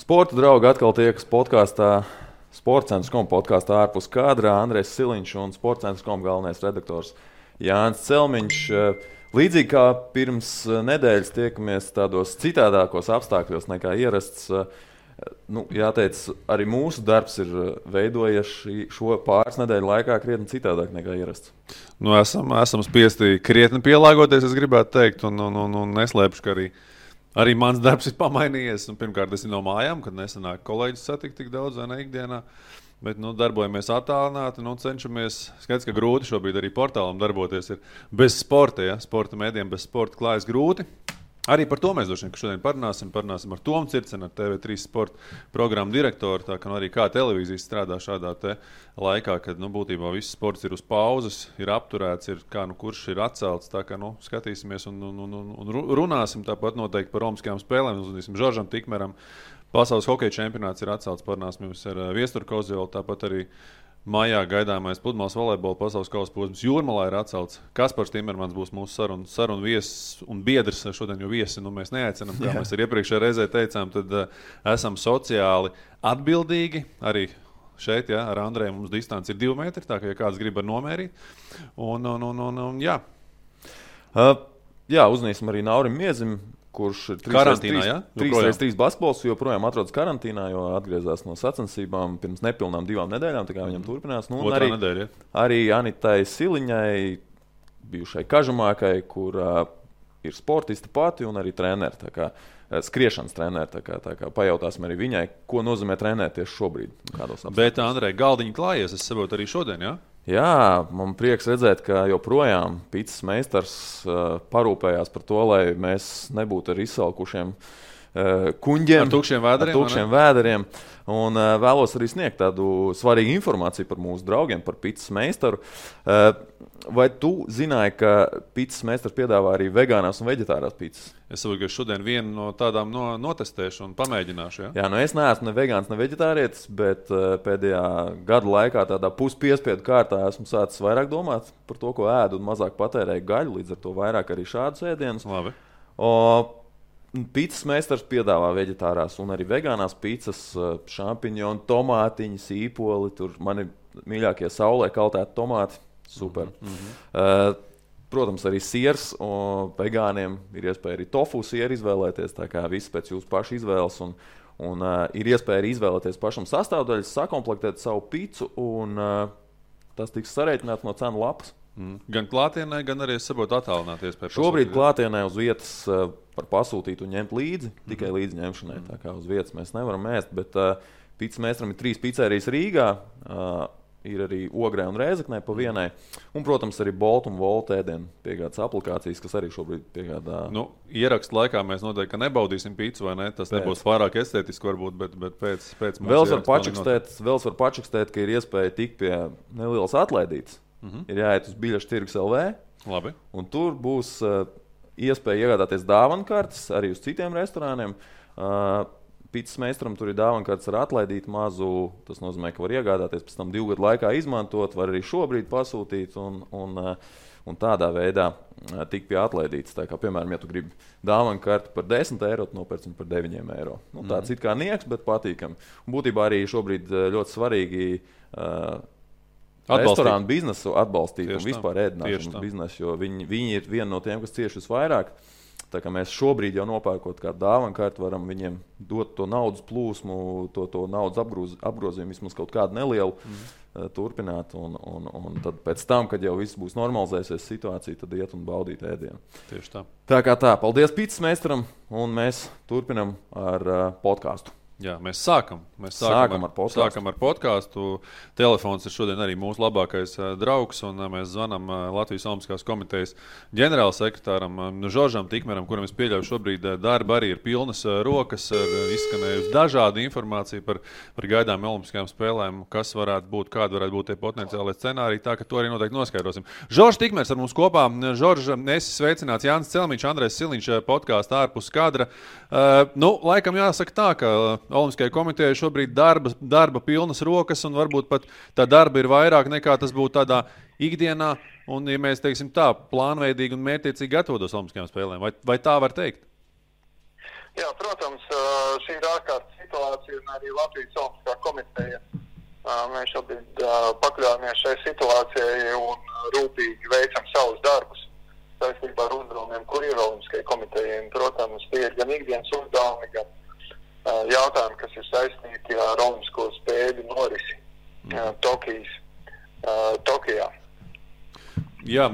Sporta draugi atkal tiekas podkāstā, Sportcentrs.com podkāstā ārpus kadrā. Andrejs Siliņš un Sportcentrs.com galvenais redaktors Jānis Celmiņš. Līdzīgi kā pirms nedēļas tiekamies tādos citādākos apstākļos nekā ierasts, jāteic, arī mūsu darbs ir veidojies šo pāris nedēļu laikā krietni citādāk nekā ierasts. Esam spiesti krietni pielāgoties, es gribētu teikt, un neslēpšu, ka arī mans darbs ir pamainījies. Pirmkārt, es no mājām, kad nesanāk kolēģis satikt tik daudz vai ne ikdienā. Bet darbojamies attālināti, cenšamies. Skaidrs, ka grūti šobrīd arī portālam darboties ir bez sporta. Ja? Sporta mēdiem bez sporta klājas grūti. Arī par to mēs šodien parunāsim ar Tomu Circenu, ar TV3 sporta programmu direktoru. Tā kā arī kā televīzija strādā šādā laikā, kad būtībā viss sports ir uz pauzes, ir apturēts, kurš ir atcelts. Tā kā skatīsimies un runāsim tāpat noteikti par Olimpiskajām spēlēm. Uzmanīsim Žoržam Tikmeram. Pasaules hokeja čempionāts ir atcelts, parunāsim ar Viesturu Kozjolu, tāpat arī maijā gaidāmais pludmales volejbola pasaules kausa posms Jūrmalā ir atcelts. Kaspars Timermans būs mūsu sarunu viesis un biedrs. Šodien jau viesi mēs neaicinām, kā mēs arī iepriekšējā reizē teicām, tad esam sociāli atbildīgi. Arī šeit, ar Andreju mums distance ir 2 metri, tā kā ja kāds grib nomērīt. Jā. Uzņīsim arī Naurim Miezim, kurš ir karantīnā, 3x3 basketbols, joprojām atrodas karantīnā, jo atgriezās no sacensībām pirms nepilnām 2 nedēļām, tā kā viņam turpinās. Otrā nedēļa, arī Anitai Siliņai, bijušai Kažamākai, kur ir sportista pati un arī treneri, tā kā skriešanas treneri, tā kā pajautāsim arī viņai, ko nozīmē trenēt tieši šobrīd. Bet, Andrej, galdiņi klājies, es saprotu arī šodien, jā? Jā, man prieks redzēt, ka joprojām picas meistars parūpējās par to, lai mēs nebūtu ar izsalkušiem kuņģiem. Ar tukšiem vēderiem. Un vēlos arī sniegt tādu svarīgu informāciju par mūsu draugiem, par picas meistaru. Vai tu zināji, ka picas meistars piedāvā arī vegānās un veģetārās picas? Es saprotu, ka šodien vienu no tādām notestēšu un pamēģināšu. Ja? Jā, es neesmu ne vegāns, ne veģetārietis, bet pēdējā gada laikā tādā puspiespiedu kārtā esmu sācis vairāk domāt par to, ko ēdu un mazāk patērēju gaļu, līdz ar to vairāk arī šādus ēdienus. Labi. Picas meistars piedāvā veģetārās un arī vegānās picas, šampiņoni, tomātiņi, sīpoli. Tur man ir mīļākie saulē kaltēti tomāti. Super. Protams, arī siers. Vegāniem ir iespēja arī tofu sieru izvēlēties. Tā kā viss pēc jūsu pašu izvēles. Un ir iespēja arī izvēlēties pašam sastāvdaļas, sakomplektēt savu picu. Un tas tiks sarēķināts no cenu lapas. Gan klātienē, gan arī saprotu attālināties. Šobrīd klātienē uz vietas var pasūtīt un ņemt līdzi, tikai līdzi ņemšanai. Tā kā uz vietas mēs nevaram ēst, bet picas meistaram ir 3 pizzerijas Rīgā, ir arī Ogrē un Rēzeknē pa vienai, un, protams, arī Bolt un Volt ēdienu piegādas aplikācijas, kas arī šobrīd piegādā. Ierakstu laikā mēs noteikti, ka nebaudīsim pizzu, vai ne? Tas nebūs pārāk estētiski varbūt, bet pēc Vēl var pačakstēt, ka ir iespēja tikt pie nelielas atlaidītes. Ir jāiet uz biļešu tirgus LV. Labi. Un tur būs iespēja iegādāties dāvankartes arī uz citiem restorāniem. Picas meistaram tur ir dāvankartes ar atlaidītu mazu. Tas nozīmē, ka var iegādāties pēc tam 2 gadu laikā izmantot, var arī šobrīd pasūtīt un tādā veidā tikt pie atlaidītas. Tā kā, piemēram, ja tu gribi dāvankarti par 10 eiro, tu nopērci par 9 eiro. Tāds it kā nieks, bet patīkami. Un būtībā arī šobrīd ļoti svarīgi restorānu biznesu atbalstīt un vispār ēdināšanas biznesu, jo viņi ir viena no tiem, kas cieši visvairāk. Tā kā mēs šobrīd jau nopērkot kādu dāvankarti, varam viņiem dot to naudas plūsmu, to naudas apgrozījumu vismaz kaut kādu nelielu turpināt. Un tad pēc tam, kad jau viss būs normalizējusies situācija, tad iet un baudīt ēdienu. Tieši tā. Tā kā tā. Paldies picas meistaram, un mēs turpinam ar podkāstu. Jā, mēs sākam ar podkāstu. Telefons ir šodien arī mūsu labākais draugs, un mēs zvanam Latvijas Olimpiskās komitejas ģenerālsekretāram Žoržam Tikmeram, kuram es pieļauju šobrīd darba arī ir pilnas rokas, izskanējusi dažāda informācija par gaidām Olimpiskajām spēlēm, kas varētu būt, kāda varētu būt tie potenciālie scenāriji, tā ka to arī noteikti noskaidrosim. Žoržs Tikmers ar mums kopā. Žorž, esi sveicināts. Jānis Celmiņš, Andrejs Siliņš, podkāstā ārpus kadra. Laikam jāsaka tā, ka Olimpiskajai komitejai šobrīd darba pilnas rokas, un varbūt pat tā darba ir vairāk nekā tas būtu tādā ikdienā, un, ja mēs teiksim tā, plānveidīgi un mērķtiecīgi gatavotos Olimpiskajām spēlēm. Vai tā var teikt? Jā, protams, šī ir ārkārtas situācija. federācija un arī Latvijas Olimpiskā komiteja. Mēs šobrīd pakļāmies šai situācijai un rūpīgi veicam savus darbus saistībā ar uzdevumiem, kur ir Olimpiskajai komitejai. Protams, tie ir gan ikdienas uzdevumi, gan jautājumi, kas ir saistīti ar Olimpisko spēļu norisi Tokijā. Jā,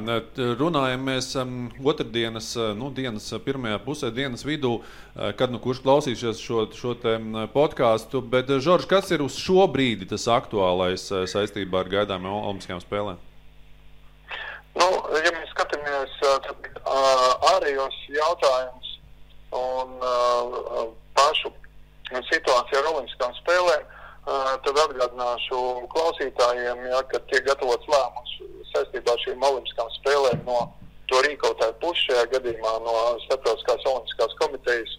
runājam mēs otrdienas, dienas pirmajā pusē, dienas vidū, kad kurš klausīsies šo te podcastu, bet, Žorž, kas ir uz šo brīdi tas aktuālais saistībā ar gaidāmiem Olimpiskajām spēlēm? Ja mēs skatāmies ārējos jautājumus un pašu situāciju ar Olimpiskām spēlēm, tad atgādināšu klausītājiem, ka tiek gatavots lēmums saistībā ar šīm Olimpiskām spēlēm no to rīkotāju puses, šajā gadījumā no Starptautiskās Olimpiskās komitejas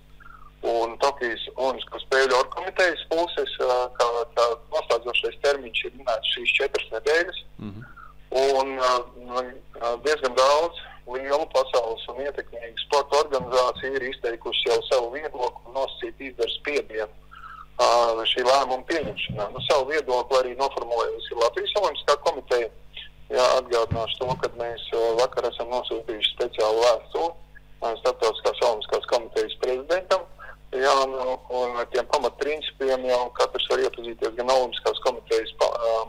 un Tokijas Olimpisko spēļu orgkomitejas puses, kā noslēdzošais termiņš ir minēts šīs 4 nedēļas. Un diezgan daudz lielu pasaules un ietekmīgu sporta organizāciju ir izteikuši jau savu viedokli un nosacīt izdara spiedienu šī lēmuma pieņemšanā. Savu viedokli arī noformulējusi Latvijas Olimpiskā komiteja. Atgādināšu to, kad mēs vakar esam nosūtījuši speciālu vēstuli Starptautiskās Olimpiskās komitejas prezidentam. Un ar tiem pamatprincipiem jau katrs var iepazīties gan Olimpiskās komitejas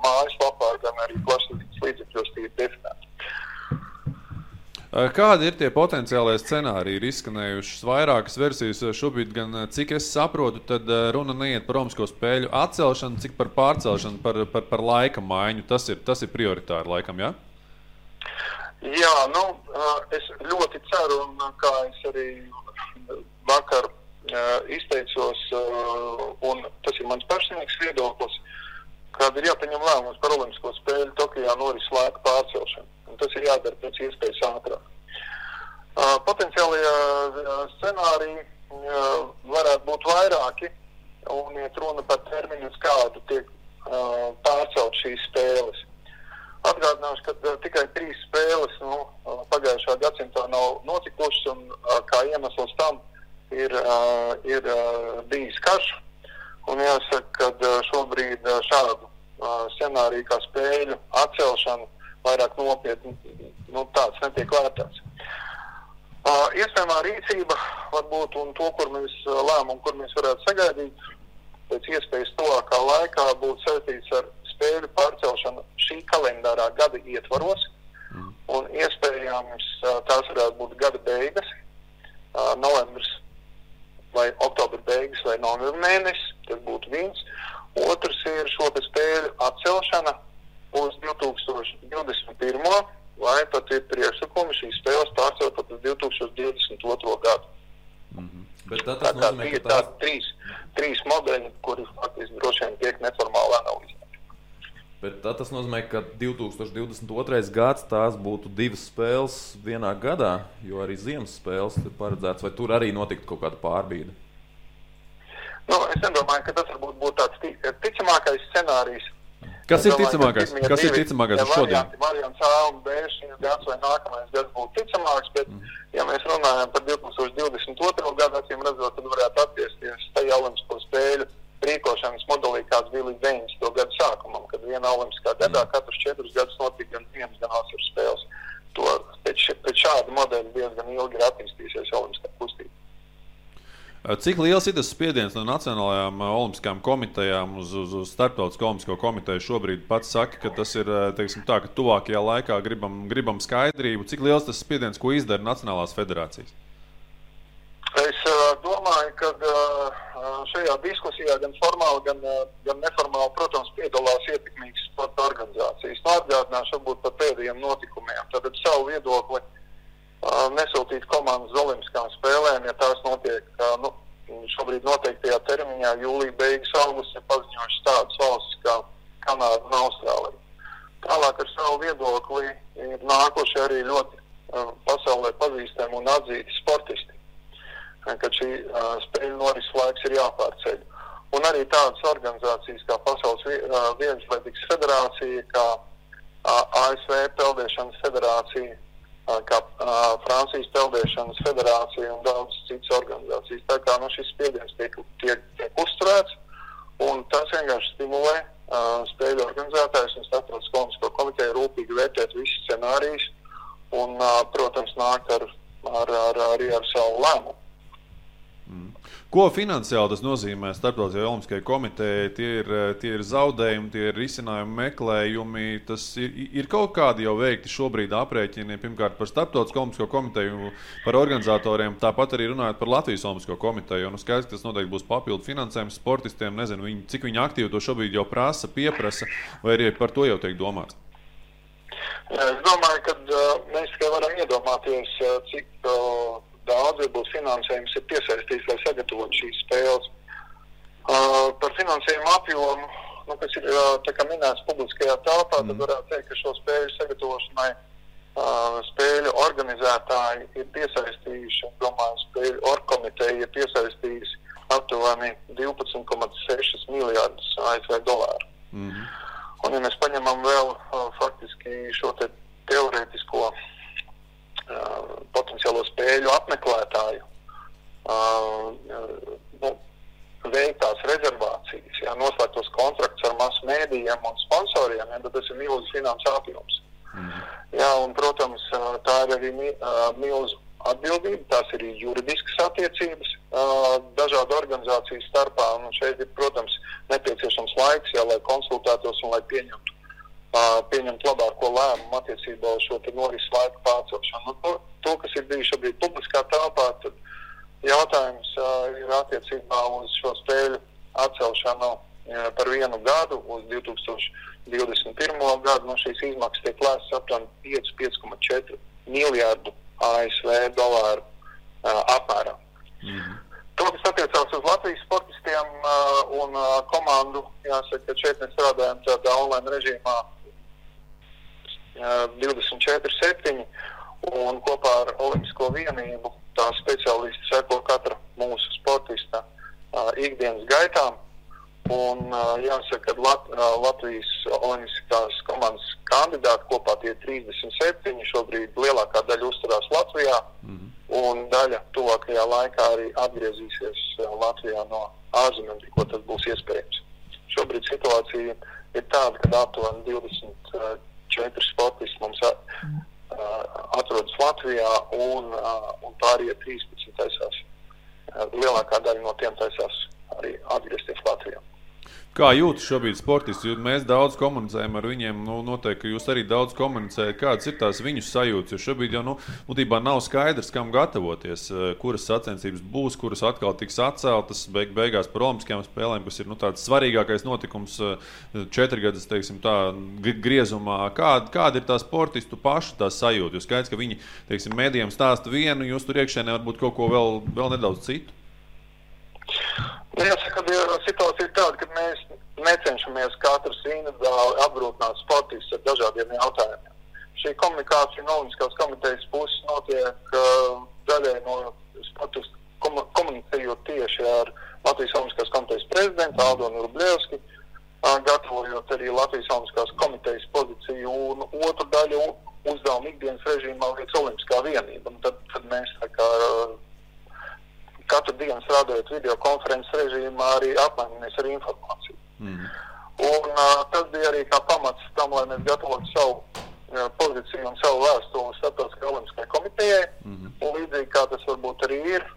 mājaslapā, gan arī plašsaziņas līdzekļos tie ir definēti. Kādi ir tie potenciālie scenāriji? Ir izskanējušas vairākas versijas šobrīd, gan cik es saprotu, tad runa neiet par Olimpisko spēļu atcelšanu, cik par pārcelšanu, par laika maiņu. Tas ir prioritāri laikam, jā? Jā, es ļoti ceru, un kā es arī vakar izteicos, un tas ir mans personīgs viedoklis, kad ir jāpieņem lēmums par Olimpisko spēļu Tokijā noris laika pārcelšanu. Un tas ir jādara pēc iespējas ātrāk. Potenciālie scenāriji varētu būt vairāki, un iet runa par termiņu, uz kādu tiek pārcelt šīs spēles. Atgādināšu, ka tikai 3 spēles pagājušā gadsimtā nav notikušas, un kā iemesls tam ir bijis karš. Un jāsaka, ka šobrīd šādu scenāriju kā spēļu atcelšanu vairāk nopietni, tāds netiek vērtēts. Iespējamā rīcība varbūt un to, lēmumu, kur mēs varētu sagaidīt, pēc iespējas tuvākā laikā būtu saistīts ar spēļu pārcelšanu šī kalendārā gada ietvaros, un iespējams tās varētu būt gada beigas, novembris vai oktobra beigas vai novembra mēnesis, tas būtu viens. Otrs ir šo spēļu atcelšana uz 2021. vai pat ir priekšsakumi šīs spēles pārcelt pat uz 2022. gadu. Bet tas nozīmē, ka tās trīs modeļi, kuri faktiski droši vien tiek neformāli analizēti. Bet tas nozīmē, ka 2022. gads tās būtu 2 spēles vienā gadā, jo arī ziemas spēles ir paredzēts, vai tur arī notiktu kaut kāda pārbīde? Es nedomāju, ka tas varbūt būtu tāds ticamākais scenārijs. Kas ir ticamākais? Kas ir ticamākais šodien? Variants A un B šis gads vai nākamais gads būtu ticamāks, bet ja mēs runājam par 2022. gadu, acīm redzot, tad varētu attiesties tajā Olimpisko spēļu rīkošanas modelī, kāds bija līdz 90. gadu sākumam, kad vienā Olimpiskā gadā katrus 4 gadus notika gan ziemas, gan vasaras spēles. Pēc šāda modeļa diezgan ilgi ir attīstījusies Olimpiskā kustība. Cik liels ir tas spiediens no Nacionālajām olimpiskajām komitejām uz Starptautisko olimpisko komiteju šobrīd? Pats saka, ka tas ir, ka tuvākajā laikā gribam skaidrību. Cik liels tas spiediens, ko izdara Nacionālās federācijas? Es domāju, ka šajā diskusijā gan formāli, gan neformāli, protams, piedalās ietekmīgas sporta organizācijas. Atgādināšu varbūt par pēdējiem notikumiem. Tātad savu viedokli nesūtīt komandas uz Olimpiskām spēlēm, ja tās notiek šobrīd noteiktajā termiņā, jūlija beigas augusts, ir paziņojuši tādas valstis kā Kanāda un Austrālija. Tālāk ar savu viedokli ir nākuši arī ļoti pasaulē pazīstami un atzīti sportisti, kad šī spēļu norises laiks ir jāpārceļ. Un arī tādas organizācijas kā Pasaules vieglatlētikas federācija, kā ASV peldēšanas federācija, kā Francijas peldēšanas federācija un daudz citas organizācijas. Tā kā šis spiediens tiek uzturēts, Un tas vienkārši stimulē spēļu organizētājus un Starptautisko olimpisko komiteju rūpīgi vērtēt visus scenārijus un, protams, nākt arī ar savu lēmumu. Ko finansiāli tas nozīmē Starptautiskajai olimpiskajai komitejai? Tie ir zaudējumi, tie ir risinājumi meklējumi. Tas ir kaut kādi jau veikti šobrīd aprēķini, pirmkārt par Starptautisko olimpisko komiteju, par organizatoriem, tāpat arī runājot par Latvijas olimpisko komiteju. Un skaidrs, ka tas noteikti būs papildu finansējums sportistiem. Nezinu, cik viņi aktīvi to šobrīd jau pieprasa, vai arī par to jau tiek domāts? Es domāju, ka mēs tikai varam iedomāties, cik daudz būs finansējums ir piesaistīts, lai sagatavotu šīs spēles. Par finansējumu apjomu, kas ir tā kā minēts publiskajā telpā, tad varētu teikt, ka šo spēļu sagatavošanai spēļu organizētāji ir piesaistījuši, un domāju, spēļu orgkomiteja ir piesaistījusi aptuveni 12,6 miljārdus ASV dolāru. Un, ja mēs paņemam vēl faktiski šo teorētisko potenciālo spēļu apmeklētāju veiktās rezervācijas, noslēgtos kontraktus ar masu mēdījiem un sponsoriem, tad tas ir milzu finansu apjoms. Un, protams, tā ir arī milzu atbildība, tās ir juridiskas attiecības dažādu organizāciju starpā, un šeit ir, protams, nepieciešams laiks, lai konsultētos un lai pieņemt labāko lēmumu attiecībā uz šo norises laiku pārcelšanu. To, kas ir bijis šobrīd publiskā telpā, tad jautājums ir attiecībā uz šo spēļu atcelšanu par 1 gadu uz 2021. Gadu. Šīs izmaksas tiek lēstas aptuveni 5,4 miljārdu ASV dolāru apmērā. To, kas attiecās uz Latvijas sportistiem un komandu, jāsaka, ka šeit mēs strādājam tādā online režīmā 24/7 un kopā ar Olimpisko vienību tā speciālisti seko katra mūsu sportista ikdienas gaitām. Un jāsaka, ka Latvijas olimpiskās komandas kandidāti kopā tie 37, šobrīd lielākā daļa uzturās Latvijā, un daļa tuvākajā laikā arī atgriezīsies Latvijā no ārzemēm, tikko tas būs iespējams. Šobrīd situācija ir tāda, ka aptuveni 24 sportisti mums atrodas Latvijā, un pārējie 13 taisās. Lielākā daļa no tiem taisās arī atgriezties Latvijā. Kā jūtas šobrīd sportisti? Mēs daudz komunicējam ar viņiem, noteikti, ka jūs arī daudz komunicējat. Kādas ir tās viņu sajūtas? Jo šobrīd jau būtībā nav skaidrs, kam gatavoties, kuras sacensības būs, kuras atkal tiks atceltas beigās par olimpiskajām spēlēm, kas ir tāds svarīgākais notikums 4 gadus, teiksim tā, griezumā. Kāda ir tā sportistu pašu tā sajūta? Jo skaidrs, ka viņi, teiksim, mēdījiem stāsta vienu, jūs tur iekšēnē varbūt kaut ko vēl nedaudz citu. Jāsaka, ka situācija ir tāda, ka mēs necenšamies katrs individuāli apgrūtināt sportistus ar dažādiem jautājumiem. Šī komunikācija no Olimpiskās komitejas puses notiek daļai no sportistu komunicējot tieši ar Latvijas Olimpiskās komitejas prezidentu Aldonu Rublievski, gatavojot arī Latvijas Olimpiskās komitejas pozīciju, un otru daļu uzdevumu ikdienas režīmā veic Olimpiskā vienība. Un tad mēs katru dienu strādājot videokonferences režīmā arī apmainamies ar informāciju. Un tas bija arī kā pamats tam, lai mēs gatavotu savu pozīciju un savu vēstuli Starptautiskajai olimpiskajai komitejai. Un līdzīgi kā tas varbūt arī ir,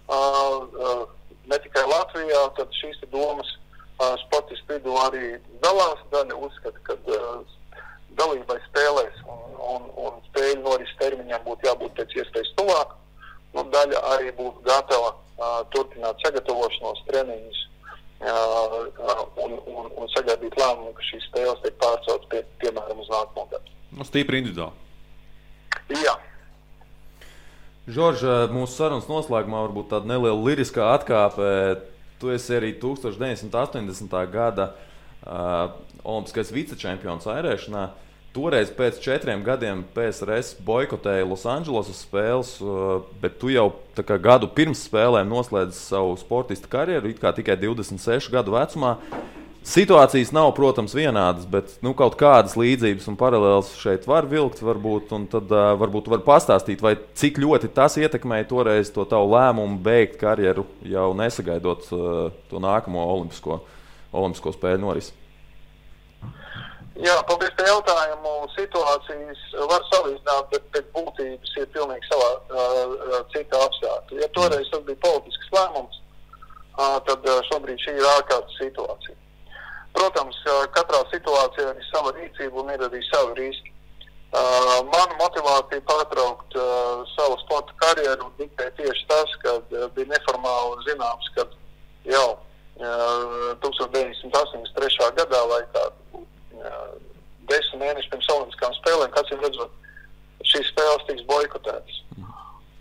ne tikai Latvijā, tad šīs domas sportistu vidū arī dalās. Daļa uzskata, ka dalībai spēlēs un spēļu norises termiņām būtu jābūt pēc iespējas tuvāk. Daļa arī būtu gatava turpināt sagatavošanos, treniņus un sagaidīt lēmumu, ka šīs spēles tiek pārceltas piemēram uz nākamo gadu. Stīpri individuāli. Jā. Žorž, mūsu sarunas noslēgumā varbūt tāda neliela liriskā atkāpe. Tu esi arī 1980. gada olimpiskais vicečempions airēšanā. Toreiz pēc 4 gadiem PSRS boikotēja Losandželosas spēles, bet tu jau gadu pirms spēlēm noslēdzi savu sportista karjeru, it kā tikai 26 gadu vecumā. Situācijas nav, protams, vienādas, bet kaut kādas līdzības un paralēlas šeit var vilkt, varbūt, un tad varbūt var pastāstīt, vai cik ļoti tas ietekmēja toreiz to tavu lēmumu beigt karjeru, jau nesagaidot to nākamo olimpisko spēļu norisi? Jā, paldies par jautājumu. Situācijas var salīdzināt, bet pēc būtības ir pilnīgi savā cita apstākļa. Ja toreiz tas bija politisks lēmums, tad šobrīd šī ir ārkārtas situācija. Protams, katrā situācijā ir sava rīcība un ir arī savi riski. Mana motivācija pārtraukt savu sporta karjeru diktē tieši tas, kad bija neformāli zināms, kad jau 1983. gadā vai kādu 10 mēneši pirms olimpiskām spēlēm, kāds jau redzot, šīs spēles tiks boikotētas.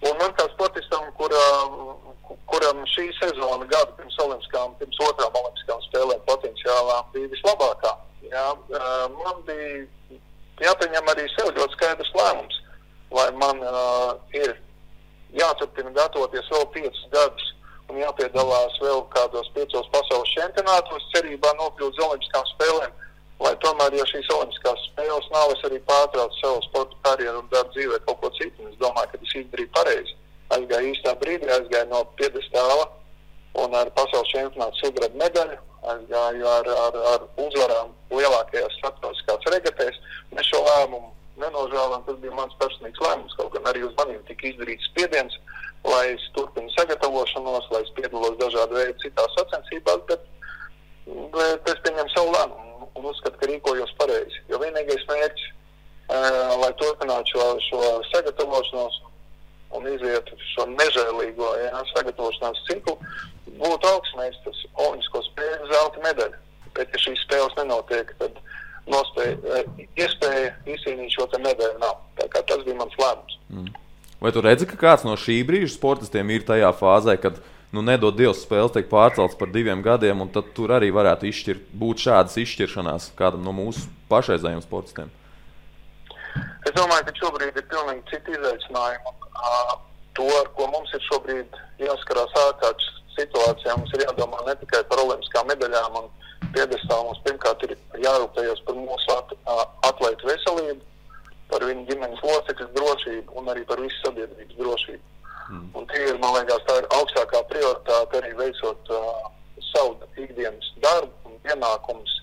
Un man kā sportistam, kuram šī sezona gada pirms otrām olimpiskām spēlēm potenciālām bija vislabākā, man bija jāpieņem arī sev ļoti skaidrs lēmums, vai man ir jāturpina gatavoties vēl 5 gadus un jāpiedalās vēl kādos 5 pasaules čempionātos, cerībā nokļūt uz olimpiskām spēlēm, lai tomēr, ja šīs olimpiskās spēles nav, es arī pārtraucu savu sporta karjeru un daru dzīvē kaut ko citu. Es domāju, ka es izdarīju pareizi. Aizgāju īstā brīdī, aizgāju no piedestāla un ar pasaules čempionātu sudraba medaļu, aizgāju ar uzvarām lielākajās starptautiskās regatēs. Mēs šo lēmumu nenožēlām, tas bija mans personīgs lēmums, kaut gan arī uz maniem tika izdarīts spiediens, lai es turpinu sagatavošanos, lai es piedalos dažādu veidu citās sacensībās, bet es pieņemu savu lēmumu un uzskatu, ka rīkojos pareizi. Jo vienīgais mērķis, lai turpinātu šo sagatavošanos un izietu šo nežēlīgo sagatavošanās ciklu, būtu augstmeistars olimpisko spēļu zelta medaļu. Bet, ja šīs spēles nenotiek, tad iespēja izcīnīt šo te medaļu nav. Tā kā tas bija mans lēmums. Vai tu redzi, ka kāds no šī brīža sportistiem ir tajā fāzē, kad nedod Dievs spēles tiek pārcelts par 2 gadiem, un tad tur arī varētu būt šādas izšķiršanās kādam no mūsu pašreizējiem sportistiem? Es domāju, ka šobrīd ir pilnīgi citi izaicinājumi. To, ar ko mums ir šobrīd jāskarās ārkārtas situācijā, mums ir jādomā ne tikai par olimpiskām medaļām un piedestālu. Mums pirmkārt ir jārūpējas par mūsu atlētu veselību, par viņu ģimenes locekļu drošību un arī par visu sabiedrības drošību. Un tie ir, man liekas, tā ir augstākā prioritāte arī veicot savu ikdienas darbu un pienākumus,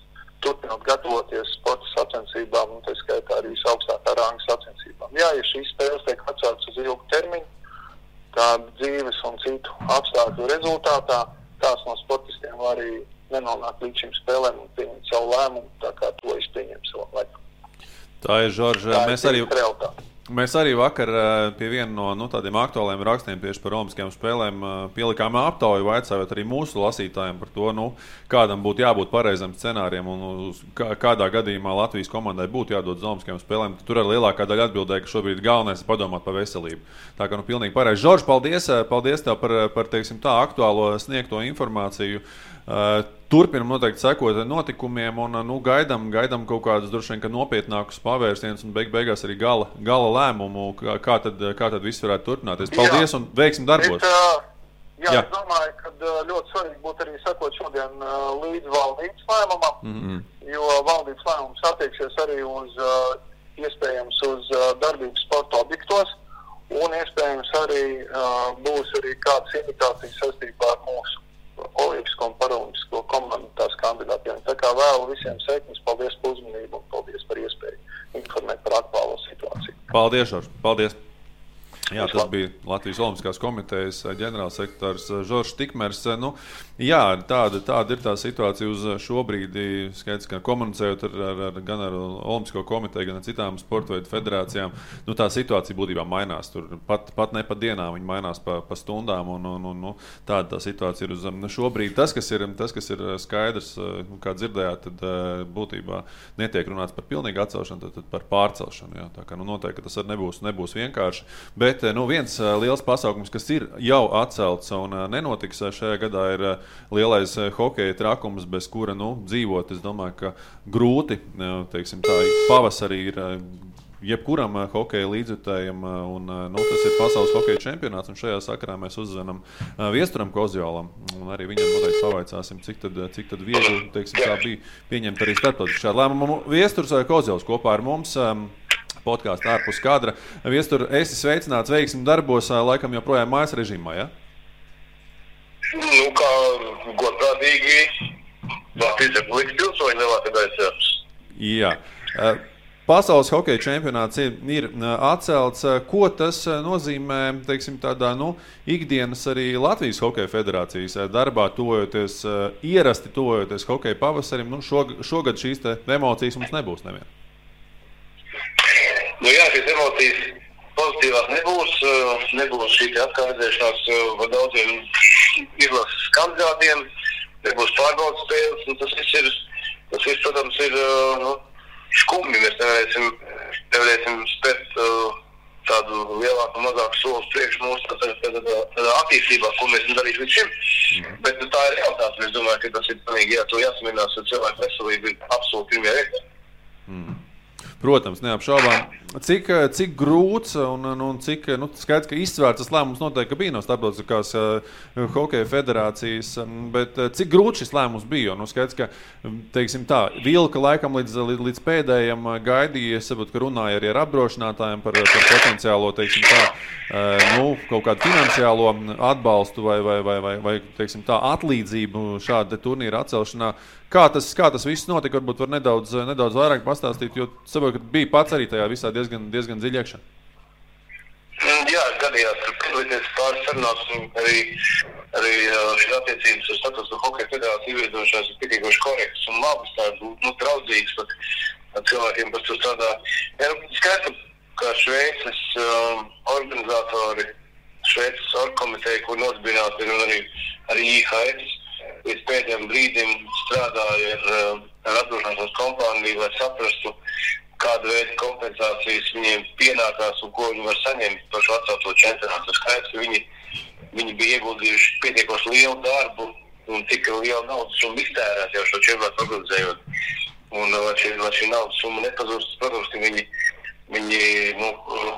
turpinot gatavoties sporta sacensībām un tā skaitā arī visaugstākā ranga sacensībām. Jā, ja šīs spēles tiek atceltas uz ilgu termiņu, tādu dzīves un citu apstākļu rezultātā, kāds no sportistiem arī nenonāk līdz šīm spēlēm un pieņemt savu lēmumu, tā kā to es pieņemu savu laiku. Tā ir, Žorž, mēs arī vakar pie viena no tādiem aktuāliem rakstiem tieši par olimpiskajām spēlēm pielikām aptauju, vaicājot arī mūsu lasītājiem par to, kādam būtu jābūt pareizam scenārijam un kādā gadījumā Latvijas komandai būtu jādod uz olimpiskajām spēlēm. Tur arī lielākā daļa atbildēja, ka šobrīd galvenais ir padomāt par veselību. Tā kā pilnīgi pareizi. Žorž, paldies tev par teiksim tā aktuālo sniegto informāciju. Turpinam noteikti sekot notikumiem un gaidām kaut kādus droši vien nopietnākus pavērsienus un beigās arī gala lēmumu, kā tad viss varētu turpināties. Paldies un veiksim darbos! Es domāju, ka ļoti svarīgi būtu arī sekot šodien līdz valdības lēmumam, jo valdības lēmums attieksies arī iespējams uz darbību sporta objektos un iespējams arī būs arī kādas indikācijas saistībā ar mūsu olimpisko un paralimpisko komandu tās kandidātiem. Tā kā vēlu visiem sekmes, paldies par uzmanību un paldies par iespēju informēt par aktuālo situāciju. Paldies, Žorž, paldies! Jā, tas bija Latvijas Olimpiskās komitejas ģenerālsekretārs Žoržs Tikmers. Tāda ir tā situācija uz šo brīdi. Skaidrs, ka komunicējot gan ar Olimpisko komiteju, gan ar citām sporta veidu federācijām, tā situācija būtībā mainās. Tur pat ne pa dienām, viņi mainās pa stundām. Tāda tā situācija ir uz šo brīdi. Tas, kas ir skaidrs, kā dzirdējāt, tad būtībā netiek runāts par pilnīgu atcelšanu, tad par pārcelšanu. Jā. Tā kā noteikti tas arī nebūs vienkārši. Bet viens liels pasākums, kas ir jau atcelts un nenotiks šajā gadā, ir lielais hokeja trakums, bez kura dzīvot. Es domāju, ka grūti, teiksim tā, pavasarī ir jebkuram hokeja līdzjutējam, un tas ir pasaules hokeja čempionāts, un šajā sakarā mēs uzzvanam Viesturam Kozjolam, un arī viņam noteikti pavaicāsim, cik tad viegli, teiksim tā, bija pieņemt arī starptautiski šādu lēmumu. Viesturs Kozjols kopā ar mums. Podkāstu ārpus kadra. Viestur, esi sveicināts veiksmi darbos, laikam joprojām mājas režīmā, ja? Kā godprātīgi Latvijas Republikas pilsoņi lielākais. Jā. Pasaules hokeja čempionāts ir atcelts. Ko tas nozīmē, teiksim, tādā, ikdienas arī Latvijas hokeja federācijas darbā, ierasti tojoties hokeja pavasarim? Šogad šīs emocijas mums nebūs nevien. Jā, šīs emocijas pozitīvās nebūs šī atkārtēšanās par daudziem izlases kandidātiem, nebūs pārbaudas spēles, tas viss, protams, ir skumji. Mēs nevarēsim spēt tādu lielāku un mazāku solis priekš mūsu tādā attīstībā, ko mēs darīsim līdz šim. Bet tā ir realitāte. Es domāju, ka tas ir pilnīgi jāsaminās, jo cilvēku veselība ir absolūti pirmajā vietā. Protams, neapšaubām. Cik grūts un cik skaidrs, ka izsvērts tas lēmums noteikti bija no starptautiskās hokeja federācijas, bet cik grūts šis lēmums bija? Skaidrs, ka, teiksim tā, vilka laikam līdz pēdējiem gaidīja, es saprotu, ka runāja arī ar apdrošinātājiem par potenciālo, teiksim tā, kaut kādu finansiālo atbalstu vai teiksim tā, atlīdzību šāda turnīra atcelšanā. Kā tas viss notika, varbūt var nedaudz vairāk pastāstīt, jo saprotu, ka bija pats arī tajā visā diezgan dziļi iekšā. Jā, gadījās, ka piedalīties pāris sarunās un arī šīs attiecības ar Starptautisko hokeja federāciju ieviedošās ir pietiekoši korektas un labas, tādas draudzīgas pat cilvēkiem, kas tur strādā. Skaidrs, ka Šveices organizatori, Šveices orgkomiteja, kur nosbināti ir un arī IHF, līdz pēdējiem brīdim strādāja ar apdrošināšanas kompāniju, lai saprastu, kāda veida kompensācijas viņiem pienākās un ko viņi var saņemt par šo atcelto čempionātu. Skaidrs, ka viņi bija ieguldījuši pietiekoši lielu darbu un tik lielu naudas summu iztērēt jau šo čempionātu organizējot. Un lai šī naudas summa nepazūst, protams, ka viņi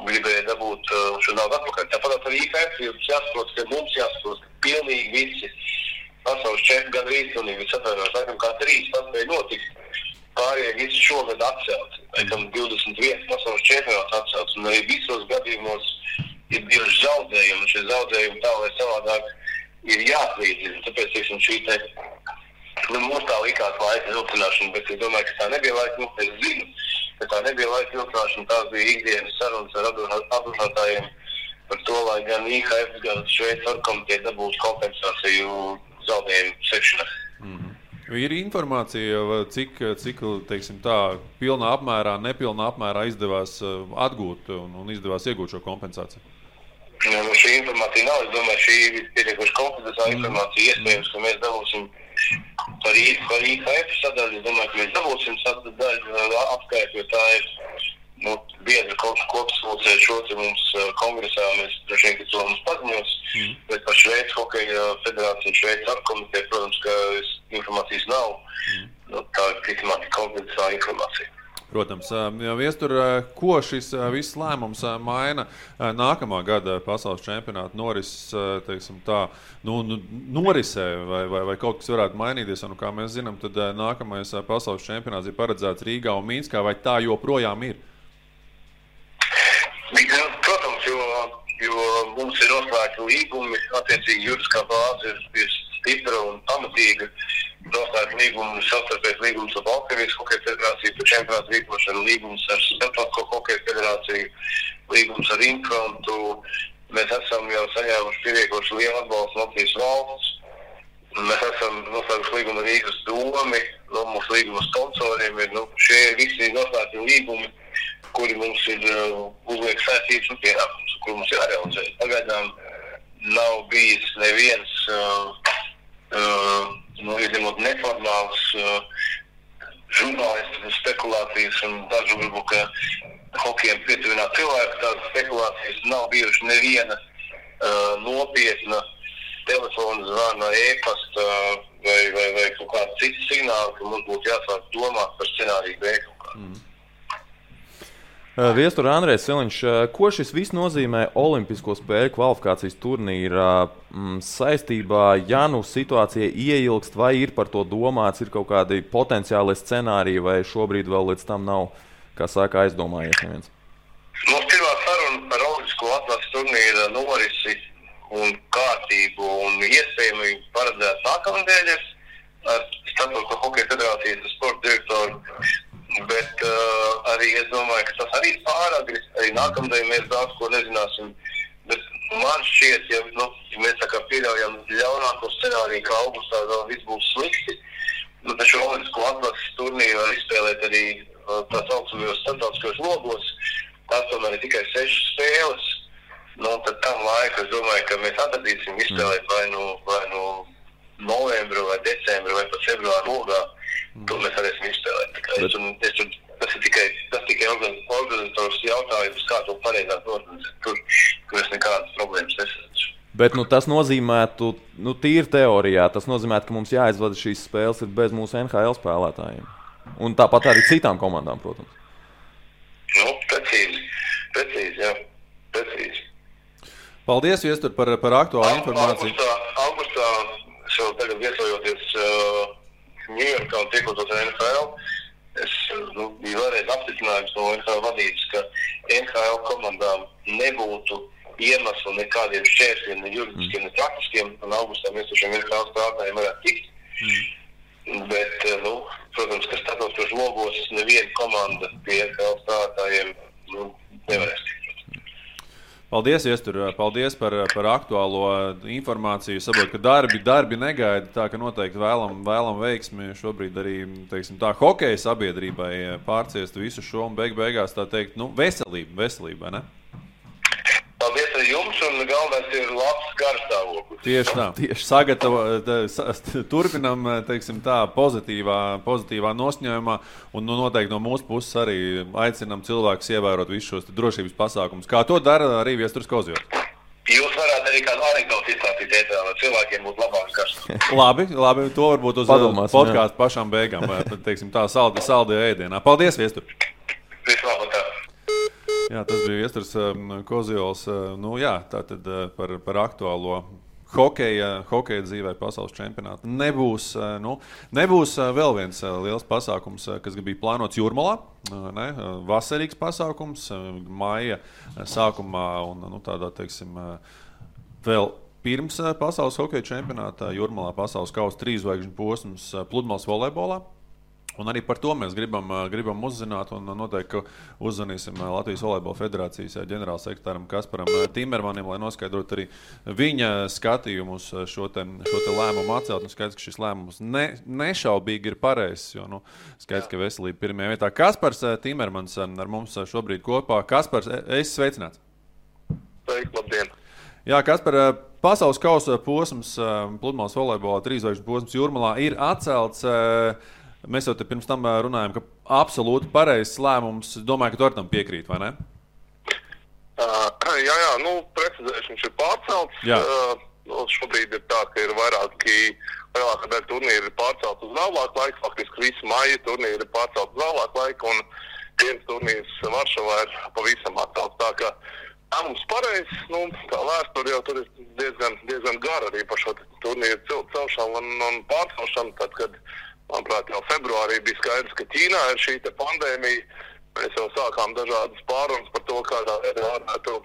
gribēja dabūt šo naudu atpakaļ. Tāpat arī IFF jāsaprot, ka mums jāsaprot, ka pilnīgi visi pasaules čempioni gandrīz un viss atvainojās, laikam kā 3 paspēja notikt. Pārējie visi šogad atcelti. Laikam 21 pasaules čempionāts atcelts. Un arī visos gadījumos ir bijuši zaudējumi. Un šie zaudējumi tā vai savādāk ir jāatlīdzina. Tāpēc, teiksim, šī mums tā likās laika vilcināšana, bet es domāju, ka tā nebija laika vilcināšana. Es zinu, ka tā nebija laika vilcināšana. Tās bija ikdienas sarunas ar apdrošinātājiem par to, lai gan IHF, gan Šveices orgkomiteja dabūtu kompensāciju zaudējumu sekšanā. Ir informācija, cik teiksim tā, pilnā apmērā, nepilnā apmērā izdevās atgūt un izdevās iegūt šo kompensāciju? Šī informācija nav. Es domāju, šī ir pietiekoši konfidenciāla informācija. Iespējams, ka mēs dabūsim par IHF sadaļu. Es domāju, ka mēs dabūsim sadaļu apskaitu, jo tā ir biedra kopsvilcēja šo mums kongresā. Mēs droši vien, ka to mums paziņos, bet par Šveices hokeja federāciju, Šveices orgkomiteju, protams, ka informācijas nav. Tā ir ticamāk konfidenciāla informācija. Protams. Viestur, ko šis viss lēmums maina nākamā gada pasaules čempionāta norisē vai kaut kas varētu mainīties? Un, kā mēs zinām, tad nākamais pasaules čempionāts ir paredzēts Rīgā un Mīnskā, vai tā joprojām ir? Protams, jo mums ir noslēgti līgumi, attiecīgi juridiskā bāze ir stipra un pamatīga. Noslēgti līgumi, savstarpējs līgums ar Baltkrievijas hokeja federāciju par čempionātu rīkošanu, līgums ar Starptautisko hokeja federāciju, līgums ar Infrontu. Mēs esam jau saņēmuši pietiekoši lielu atbalstu no Latvijas valsts. Mēs esam noslēguši līgumu ar Rīgas domi, mūsu līguma sponsoriem ir šie visi noslēgti līgumi, kuri mums ir uzliek saistības un pienākums, kuri mums ir jārealizē. Pagaidām nav bijis neviens izņemot neformāls žurnālistu spekulācijas un dažu varbūt, ka hokejiem pietuvināt cilvēku, tādas spekulācijas nav bijuši neviena nopietna telefona zvana, e-pasta vai kaut kāda cita signāla, ka mums būtu jāsāk domāt par scenāriju B kaut kā. Viestur Andrejs Siliņš, ko šis viss nozīmē Olimpisko spēļu kvalifikācijas turnīrā saistībā, ja situācija ieilgst, vai ir par to domāts, ir kaut kādi potenciāli scenāriji, vai šobrīd vēl līdz tam nav, kā saka, aizdomājies neviens? Mums pirmā saruna par Olimpisko atlases turnīra norisi un kārtību un iespējami paredzēt nākamnedēļ ar Starptautisko nākamdien mēs daudz ko nezināsim. Bet man šķiet, ja mēs tā kā pieļaujam ļaunāko scenāriju, ka augustā vēl viss būs slikti, taču olimpisko atlases turnīru var izspēlēt arī tā saucamajos starptautiskajos logos. Tās tomēr ir tikai 6 spēles. Tad tam laika, es domāju, ka mēs atradīsim izspēlēt vai nu novembru, vai decembru, vai pat februāru logā. To mēs varēsim izspēlēt. Tas ir tikai organizators jautājums, kā to pareizāk organizēt. Tur es nekādas problēmas nesaredzu. Bet tas nozīmētu, tīri teorijā, tas nozīmētu, ka mums jāizvada šīs spēles ir bez mūsu NHL spēlētājiem. Un tāpat arī citām komandām, protams. Precīzi, jā. Precīzi. Paldies, Viestur, par aktuālu informāciju. Augustā, es jau tagad viesojoties Ņujorkā un tiekotos ar NHL, es biju vēlreiz apstiprinājums no NHL vadības, ka NHL komandām nebūtu iemeslu nekādiem šķērsiem, ne juridiskiem, ne praktiskiem, un augustā mēs uz šiem NHL spēlētājiem varētu tikt. Bet, protams, ka starptautiskos logos neviena komanda pie NHL spēlētājiem nevarēs tikt. Paldies, Viestur, paldies par aktuālo informāciju. Saprotu, ka darbi negaida, tā ka noteikti vēlam veiksmi šobrīd arī, teiksim, tā hokeja sabiedrībai pārciest visu šo un beigās tā teikt, veselība, ne? Paldies arī jums, un galvenais ir labs garstāvoklis. Tieši tā. Turpinam, teiksim tā, pozitīvā nosņēmumā, un noteikti no mūsu puses arī aicinam cilvēkus ievērot visus šos drošības pasākumus. Kā to dara arī Viesturs Kozjovs? Jūs varētu arī kādu anekdotu izstāstīt ēterā, lai cilvēkiem būtu labāks garstāvoklis. Labi, to varbūt uz podkāstu pašām beigām, teiksim tā, saldajā ēdienā. Paldies, Viestur! Vislabāk! Jā, tas bija Viesturs Kozjovs. Tātad par aktuālo hokeja dzīvē pasaules čempionātu. Nebūs vēl viens liels pasākums, kas bija plānots Jūrmalā. Vasarīgs pasākums maija sākumā un tādā, teiksim, vēl pirms pasaules hokeja čempionātā Jūrmalā pasaules kausa 3 zvaigžņu posms pludmales volejbolā. Un arī par to mēs gribam uzzināt, un noteikti uzzvanīsim Latvijas Volejbola federācijas ģenerālsekretāram Kasparam Timermanim, lai noskaidrotu arī viņa skatījumu uz šo te lēmumu atcelt. Un skaidrs, ka šis lēmums nešaubīgi ir pareizs, jo skaidrs, ka veselība pirmajā vietā. Kaspars Timermans ar mums šobrīd kopā. Kaspars, esi sveicināts. Sveiki, labdien. Jā, Kaspar, pasaules kausa posms pludmales volejbolā 3 zvaigžņu posms Jūrmalā ir atcelts. Mēs jau te pirms tam runājam, ka absolūti pareizs lēmums. Domāju, ka tu ar tam piekrīt, vai ne? Precizēšu, viņš ir pārcelts. Šobrīd ir tā, ka ir lielākā daļa turnīri ir pārcelt uz vēlāku laiku. Faktiski visi maija turnīri ir pārcelt uz vēlāku laiku, un viens turnīrs Varšavā ir pavisam atcelts. Tā kā mums pareizs, tā vēsture jau tur ir diezgan gara arī par šo turnīru celšanu un pārcelšanu, tad, kad manuprāt, jau februārī bija skaidrs, ka Ķīnā ir šī pandēmija. Mēs jau sākām dažādas pārunas par to, kādā veidā varētu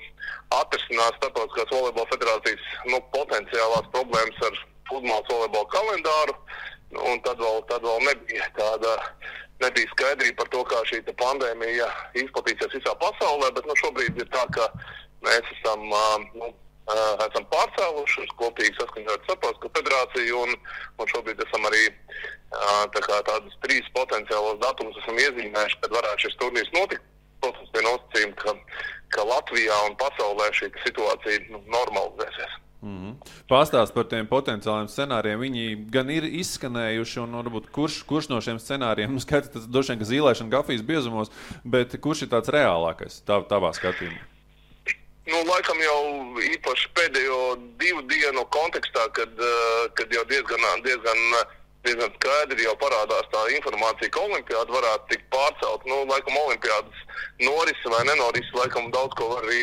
atrisināt starptautiskās volejbola federācijas potenciālās problēmas ar pludmales volejbola kalendāru. Un tad vēl nebija skaidrība par to, kā šī pandēmija izplatīsies visā pasaulē, bet šobrīd ir tā, ka mēs esam pārcēluši kopīgi saskaņot starptautisko federāciju un šobrīd esam arī tādus 3 potenciālos datumus esam iezīmējuši, kad varētu šis turnīrs notikt. Protams, bija nosacījumi, ka Latvijā un pasaulē šī situācija normalizēsies. Pastāst par tiem potenciāliem scenārijiem. Viņi gan ir izskanējuši, un varbūt kurš no šiem scenārijiem, skaidrs, tas droši vien, ka zīlēšana kafijas biezumos, bet kurš ir tāds reālākais tavā skatījumā? Laikam jau īpaši pēdējo 2 dienu kontekstā, kad jau diezgan skaidri jau parādās tā informācija, ka olimpiāda varētu tikt pārcelt. Laikam olimpiādas norisi vai nenorisi, laikam daudz ko var arī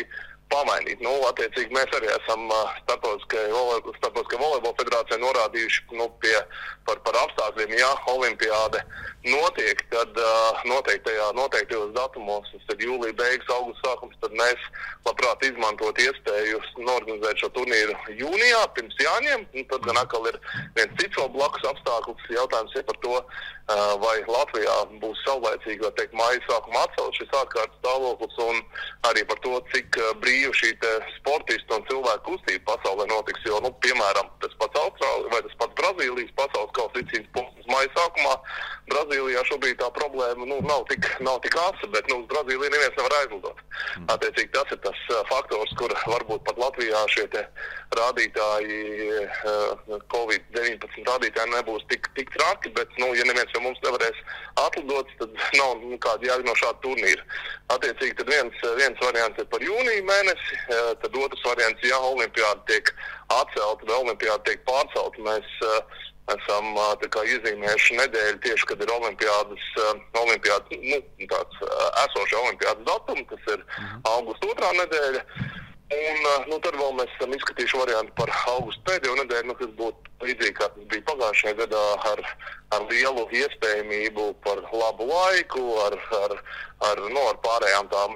pamainīt. Attiecīgi mēs arī esam Starptautiskajai volejbola federācijai norādījuši par apstākļiem, ja olimpiāde notiek, tad noteiktajos datumos, tad jūlija beigas, augusta sākums, tad mēs labprāt izmantot iespēju norganizēt šo turnīru jūnijā, pirms Jāņiem. Tad gan atkal ir viens cits vēl blakus apstākļus. Jautājums ir par to, vai Latvijā būs saulēcīgi, vai teikt, māja sākuma atcelt šis ārkārtas stāvoklis, un arī par to, cik brīvi šī sportistu un cilvēku kustība pasaulē notiks. Jo, piemēram, tas pats Austrālija vai tas pats Brazīlijas pasaules kausa izcīņas punkts māja sākumā. Brazīlijā šobrīd tā problēma nav tik asa, bet uz Brazīliju neviens nevar aizlidot. Attiecīgi tas ir tas faktors, kur varbūt pat Latvijā šie rādītāji, Covid-19 rādītāji nebūs tik traki, bet, ja neviens jau mums nevarēs atlidot, tad nav kāda jēga no šāda turnīra. Attiecīgi tad viens variants ir par jūniju mēnesi, tad otrs variants, ja olimpiāda tiek atcelta vai olimpiāda tiek pārcelta, mēs esam iezīmējuši nedēļu tieši, kad ir olimpiādas esoša olimpiādas datuma, tas ir augusta 2. nedēļa. Un tad vēl mēs esam izskatījuši variantu par augustu pēdējo nedēļu, kas būtu līdzīgi, kā tas bija pagājušajā gadā ar lielu iespējamību par labu laiku, ar pārējām tām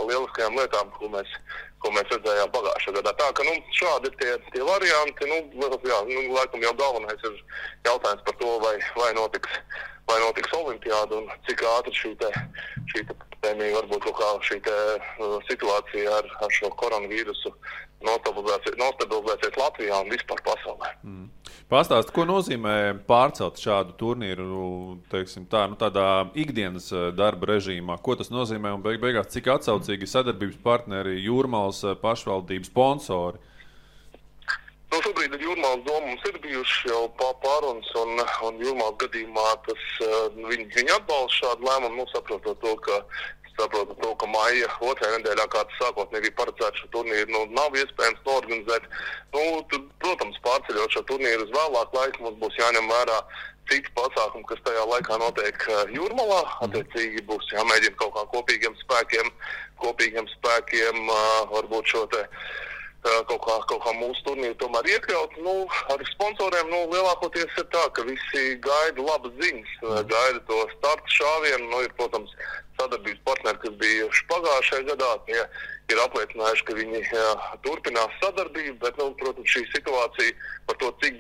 lieliskajām lietām, ko mēs redzējām pagājušajā gadā. Tā ka šādi ir tie varianti. Laikam jau galvenais ir jautājums par to, vai notiks olimpiāda un cik ātri šī pandēmija, varbūt kaut kā šī situācija ar šo koronavīrusu nostabilizēsies Latvijā un vispār pasaulē. Pastāst, ko nozīmē pārcelt šādu turnīru, teiksim tā, tādā ikdienas darba režīmā? Ko tas nozīmē un beigās, cik atsaucīgi sadarbības partneri, Jūrmalas pašvaldības sponsori? Šobrīd ar Jūrmalas domu mums ir bijuši jau pārunas un Jūrmalas gadījumā viņi atbalsta šādu lēmumu, saprotot to, ka maija 2. nedēļā, kā tas sākotnēji bija paredzēts, šo turnīru nav iespējams norganizēt. Tad, protams, pārceļot šo turnīru uz vēlāku laiku, mums būs jāņem vērā citi pasākumi, kas tajā laikā notiek Jūrmalā. Attiecīgi būs jāmēģina kaut kā kopīgiem spēkiem varbūt šo kaut kā mūsu turnīru tomēr iekļaut. Ar sponsoriem lielākoties ir tā, ka visi gaida labas ziņas, gaida to startu šāvienu. Ir, protams, sadarbības partneri, kas bijuši pagājušajā gadā, tie ir apliecinājuši, ka viņi turpinās sadarbību, bet, protams, šī situācija par to, cik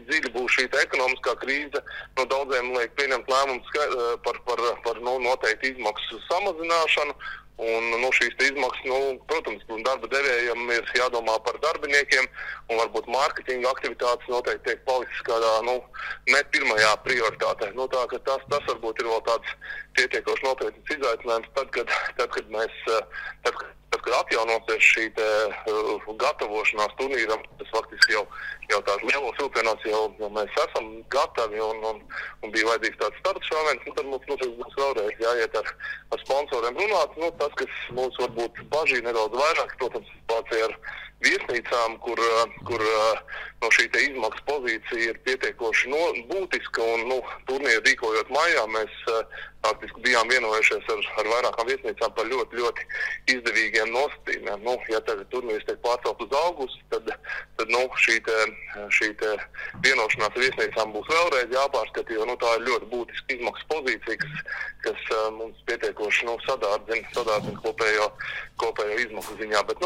dziļi būs šī ekonomiskā krīze, daudziem liek pieņemt lēmumus par noteikti izmaksu samazināšanu. Un šīs izmaksas, protams, darba devējiem ir jādomā par darbiniekiem, un varbūt mārketinga aktivitātes noteikti tiek palicis kādā, ne pirmajā prioritātē. Tā ka tas varbūt ir vēl tāds pietiekoši nopietns izaicinājums, tad, kad atjaunosies šī gatavošanās turnīram, tas faktiski jau tās lielos vilcienos jau mēs esam gatavi un bija vajadzīgs tāds starts šāviens, tad mums būs vēlreiz jāiet ar sponsoriem runāt. Tas, kas mums varbūt bažīja nedaudz vairāk, protams, situācija ar viesnīcām, kur šī izmaksu pozīcija ir pietiekoši būtiska, un turnīru rīkojot maijā, mēs faktiski bijām vienojušies ar vairākām viesnīcām par ļoti, ļoti izdevīgiem nosacījumiem. Ja tagad turnīrs tiek pārcelt uz augustu, tad šī vienošanās ar viesnīcām būs vēlreiz jāpārskata, jo tā ir ļoti būtiska izmaksu pozīcija, kas mums pietiekoši sadārdzina kopējo izmaksu ziņā. Bet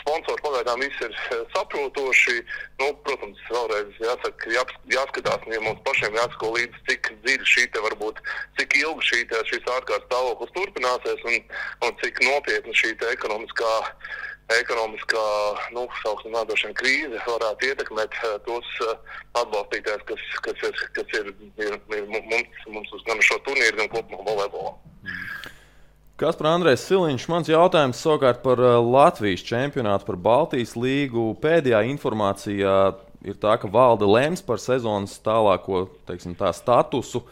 sponsori pagaidām visi ir saprotoši. Protams, vēlreiz jāskatās, ja mums pašiem jāsako līdzi, cik dziļi cik ilgi šīs ārkārtas stāvoklis turpināsies un cik nopietni šī ekonomiskā sauksim nādošana krīze varētu ietekmēt tos atbalstītājus, kas ir mums uz gan šo turnīru, gan kopumā volejbolā. Kaspar Andrejs Siliņš, mans jautājums savukārt par Latvijas čempionātu, par Baltijas līgu. Pēdējā informācijā ir tā, ka valde lems par sezonas tālāko, statusu.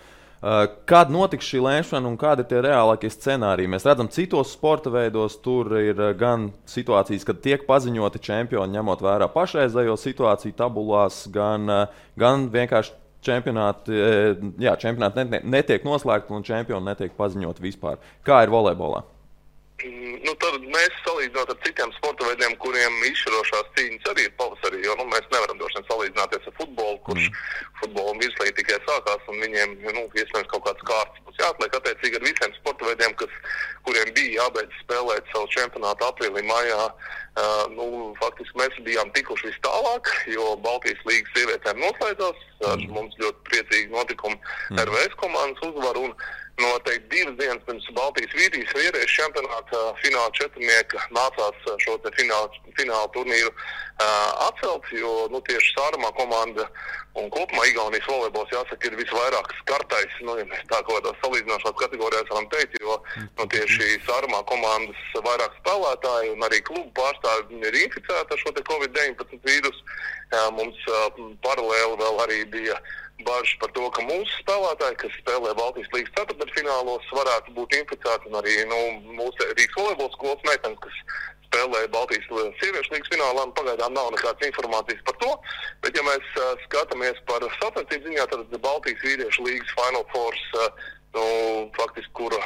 Kad notiks šī lemšana un kādi ir tie reālākie scenāriji? Mēs redzam, citos sporta veidos tur ir gan situācijas, kad tiek paziņoti čempioni, ņemot vērā pašreizējo situāciju tabulās, gan vienkārši čempionāti netiek noslēgti un čempioni netiek paziņoti vispār. Kā ir volejbolā? Tad mēs salīdzinot ar citiem sporta veidiem, kuriem izšķirošās cīņas arī ir pavasarī, jo mēs nevaram droši vien salīdzināties ar futbolu, kurš futbola virslīgi tikai sākās un viņiem iespējams kaut kāds kārtas būs jāatliek attiecīgi ar visiem sporta veidiem, kuriem bija jābeidz spēlēt savu čempionātu aprīlī, maijā. Faktiski mēs bijām tikuši vis tālāk, jo Baltijas līgas sievietēm noslēdzās, mums ļoti priecīgi notikumi RVS komandas uzvaru un noteikti 2 dienas pirms Baltijas vīriešu čempionāta fināla četrnieka nācās šo te fināla turnīru atcelt, jo tieši Sārumā komanda un kopumā Igaunijas volejbols jāsaka ir visvairāk skartais, ja mēs tā kaut kādās salīdzināšanās kategorijās varam teikt, jo tieši Sārumā komandas vairāk spēlētāji un arī klubu pārstāvi ir inficēti ar šo te COVID-19 vīrusu. Mums paralēli vēl arī bija bažas par to, ka mūsu spēlētāji, kas spēlē Baltijas līgas ceturtdaļfinālos, varētu būt inficēti un arī mūsu Rīgas volejbola skolas meitenes, kas spēlē Baltijas sieviešu līgas finālā, pagaidām nav nekādas informācijas par to, bet ja mēs skatāmies par sacensību ziņā, tad Baltijas vīriešu līgas Final Fours, faktiski, kura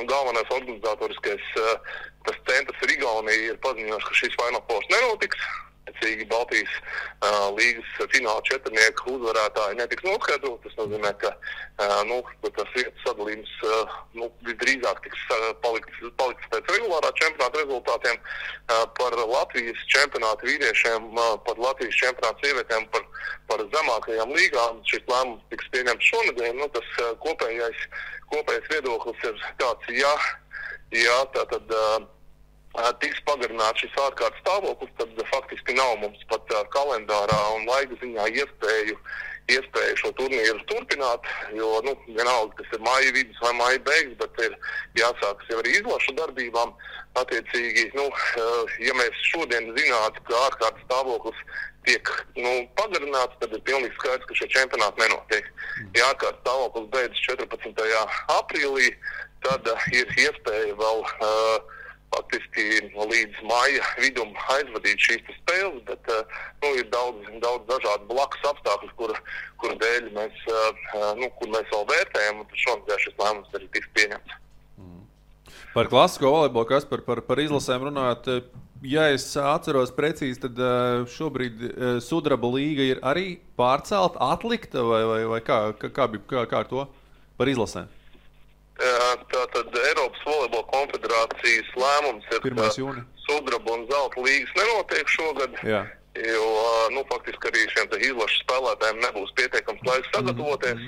galvenais organizatoriskais tas centrs ir Igaunija, ir paziņojuši, ka šīs Final Fours nenotiks. Baltijas līgas fināla četrnieku uzvarētāji netiks noskaidrot. Tas nozīmē, ka tas vietas sadalījums visdrīzāk tiks palikts pēc regulārā čempionāta rezultātiem. Par Latvijas čempionātu vīriešiem, par Latvijas čempionātu sievietēm, par zemākajām līgām šis lēmums tiks pieņemts šonedēļ. Tas kopējais viedoklis ir tāds, ja tātad tiks pagarināts šis ārkārtas stāvoklis, tad faktiski nav mums pat kalendārā un laika ziņā iespēju šo turnīru turpināt, jo vienalga, tas ir māja vidus vai māja beigas, bet ir jāsākas jau arī izlašu darbībām. Attiecīgi, ja mēs šodien zinātu, ka ārkārtas stāvoklis tiek pagarināts, tad ir pilnīgi skaidrs, ka šie čempionāti nenotiek. Ja ārkārtas stāvoklis beidzas 14. aprīlī, tad ir iespēja vēl faktiski līdz maija vidum aizvadīt šīs spēles, bet ir daudz dažādu blakus apstākļus, kur dēļ mēs, kur mēs vēl vērtējam, un šonadēļ šis lēmums arī tiks pieņemts. Par klasisko volejbolu, kas par izlasēm runājot, ja es atceros precīzi, tad šobrīd Sudraba līga ir arī pārcelta, atlikta, vai kā ar to par izlasēm? Tātad Eiropas volejbola konfederācijas lēmums ir, ka Sudraba un Zelta līgas nenotiek šogad, jo faktiski arī šiem izlašu spēlētājiem nebūs pietiekams laiks sagatavoties.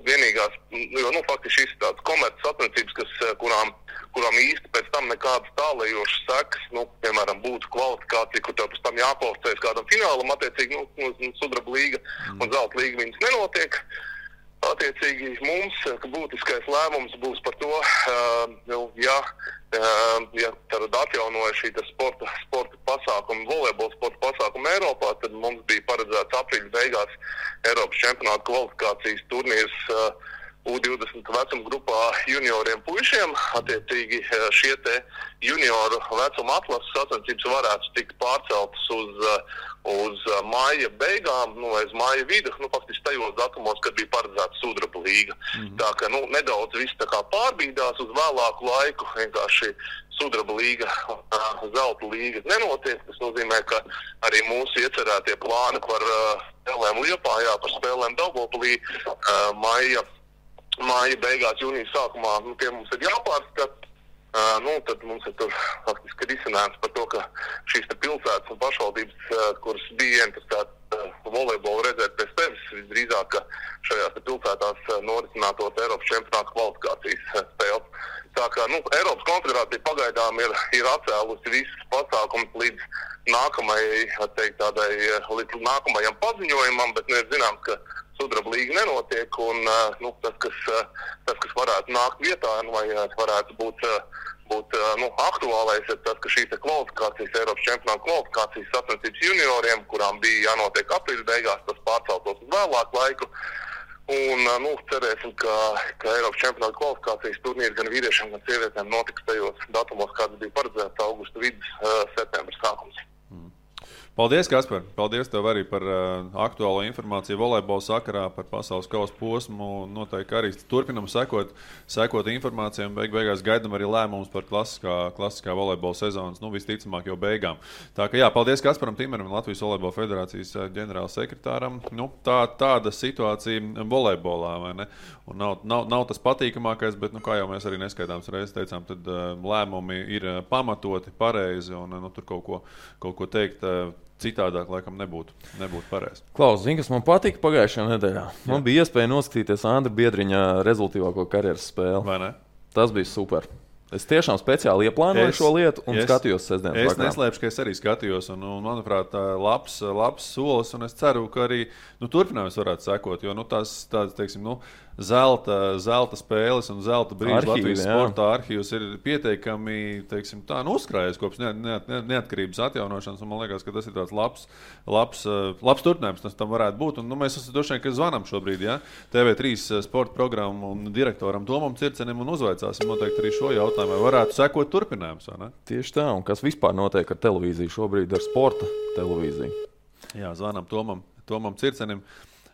Vienīgās, jo faktiski šis tāds komerces sacensības, kurām īsti pēc tam nekādas tālējošas sekas, piemēram, būtu kvalifikācija, kur tev pēc tam jākvalificējas kādam finālam, attiecīgi Sudraba līga un Zelta līga viņas nenotiek. Attiecīgi mums būtiskais lēmums būs par to, ja tad atjaunoja šī sporta pasākuma, volejbola sporta pasākuma Eiropā, tad mums bija paredzēts aprīļa beigās Eiropas čempionāta kvalifikācijas turnīrs U20 vecuma grupā junioriem puišiem. Attiecīgi šie te junioru vecuma atlases sacensības varētu tikt pārceltas uz maija beigām, vai uz maija vidu, faktiski tajos datumos, kad bija paredzēta Sudraba līga. Tā ka nedaudz viss tā kā pārbīdās uz vēlāku laiku, vienkārši Sudraba līga, Zelta līga nenotiek. Tas nozīmē, ka arī mūsu iecerētie plāni par spēlēm Liepājā, par spēlēm Daugavpilī māja beigās, jūnijas sākumā, tie mums ir jāpārskata. Tad mums ir tur faktiski risinājums par to, ka šīs pilsētas un pašvaldības, kuras bija interesētas volejbolu redzēt pēc tevis, visdrīzāk, ka šajās pilsētās norisinātos Eiropas čempionāta kvalifikācijas spēles. Tā kā Eiropas konfederācija pagaidām ir atcēlusi visas pasākumus līdz nākamajam paziņojumam, bet ir zināms, ka Sudraba līga nenotiek, un tas, kas varētu nākt vietā, vai varētu būt aktuālais, ir tas, ka šīs kvalifikācijas, Eiropas čempionāta kvalifikācijas sacensības junioriem, kurām bija jānotiek aprīļa beigās, tas pārceltos uz vēlāku laiku. Un cerēsim, ka Eiropas čempionāta kvalifikācijas turnīri gan vīriešiem, gan sievietēm notiks tajos datumos, kāds bija paredzēts augusta vidus, septembra sākums. Paldies, Kaspar! Paldies tev arī par aktuālo informāciju volejbola sakarā, par pasaules kausa posmu. Noteikti arī turpinam sekot informācijām. Beigās gaidām arī lēmumus par klasiskā volejbola sezonas, visticamāk jau beigām. Tā kā jā, paldies Kasparam Timeram, Latvijas volejbola federācijas ģenerālsekretāram. Tāda situācija volejbolā, vai ne? Un nav tas patīkamākais, bet, kā jau mēs arī neskaidāms reizes teicām, tad lēmumi ir pamatoti, pareizi un tur kaut ko teikt citādāk, laikam, nebūtu pareizi. Klaus, zini, kas man patika pagājušajā nedēļā? Man bija iespēja noskatīties Andra Biedriņa rezultīvāko karjeras spēli. Vai ne? Tas bija super. Es tiešām speciāli ieplānoju šo lietu un skatījos sestdienas vakarā. Es neslēpšu, ka es arī skatījos, un manuprāt, labs solis, un es ceru, ka arī turpinājums varētu sekot, jo tāds, teiksim, zelta spēles un zelta brīža Latvijas sporta arhīvs ir pietiekami, teiksim, uzkrājies kopš neatkarības atjaunošanas, un man liekas, ka tas ir tāds labs turpinājums, tas tam varētu būt, un mēs droši vien, ka zvanam šobrīd, ja? TV3 sporta programmu un direktoram Tomam Circenim un uzvaicāsim noteikti arī šo jautājumu, vai varētu sekot turpinājums, vai ne? Tieši tā, un kas vispār notiek ar televīziju šobrīd, ar sporta televīziju? Jā, zvanam Tomam Circenim.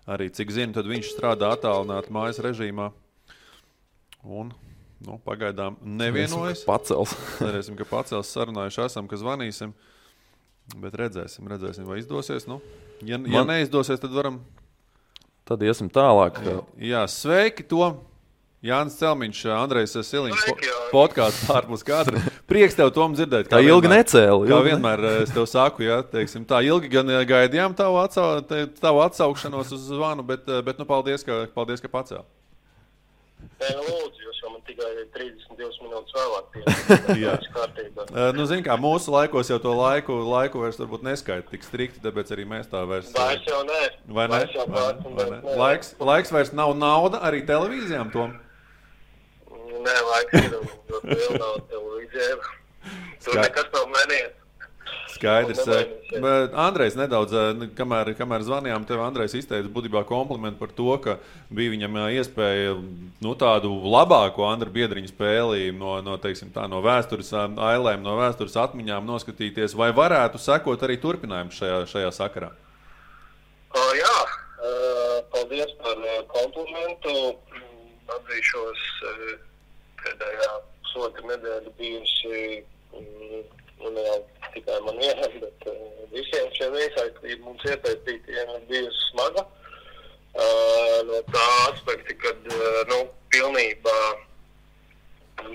Arī, cik zinu, tad viņš strādā attālināti mājas režīmā. Un, pagaidām nevienojas. Cerēsim, ka pacels, sarunājuši esam, ka zvanīsim. Bet redzēsim, vai izdosies. Ja neizdosies, tad varam... Tad iesim tālāk. Jā, sveiki, Tom! Jānis Celmiņš, Andrejs Siliņš, podkāsts ārpus kadra. Prieks tev, Tom, dzirdēt. Tā ilgi necēli. Kā vienmēr es tev saku, ja, teiksim, tā ilgi gan gaidījām tavu atsaukšanos uz zvanu, bet paldies, ka pacēli. Lūdzu, jūs jau man tikai 32 minūtes vēlāk kārtībā. Zini kā, mūsu laikos jau to laiku vairs varbūt neskaita tik strikti, tāpēc arī mēs tā vairs... Vairs jau nē. Vai ne? Laiks vairs nav nauda arī televīzijām, Tom? Nē, laiks ir vēl nav televīzijām. Tur nekas nav mainījies. Skaidrs. Andrejs nedaudz, kamēr zvanījām, tev Andrejs izteica būtībā komplimentu par to, ka bija viņam iespēja tādu labāko Andra Biedriņa spēli no vēstures ailēm, no vēstures atmiņām noskatīties, vai varētu sekot arī turpinājums šajā sakarā? Jā, paldies par komplimentu. Atzīšos, pēdējā pusotra nedēļa bijusi jau tikai man vienam, bet visiem šiem iesaistību mums iesaistītiem ir bijusi smaga. No tā aspekta, kad pilnībā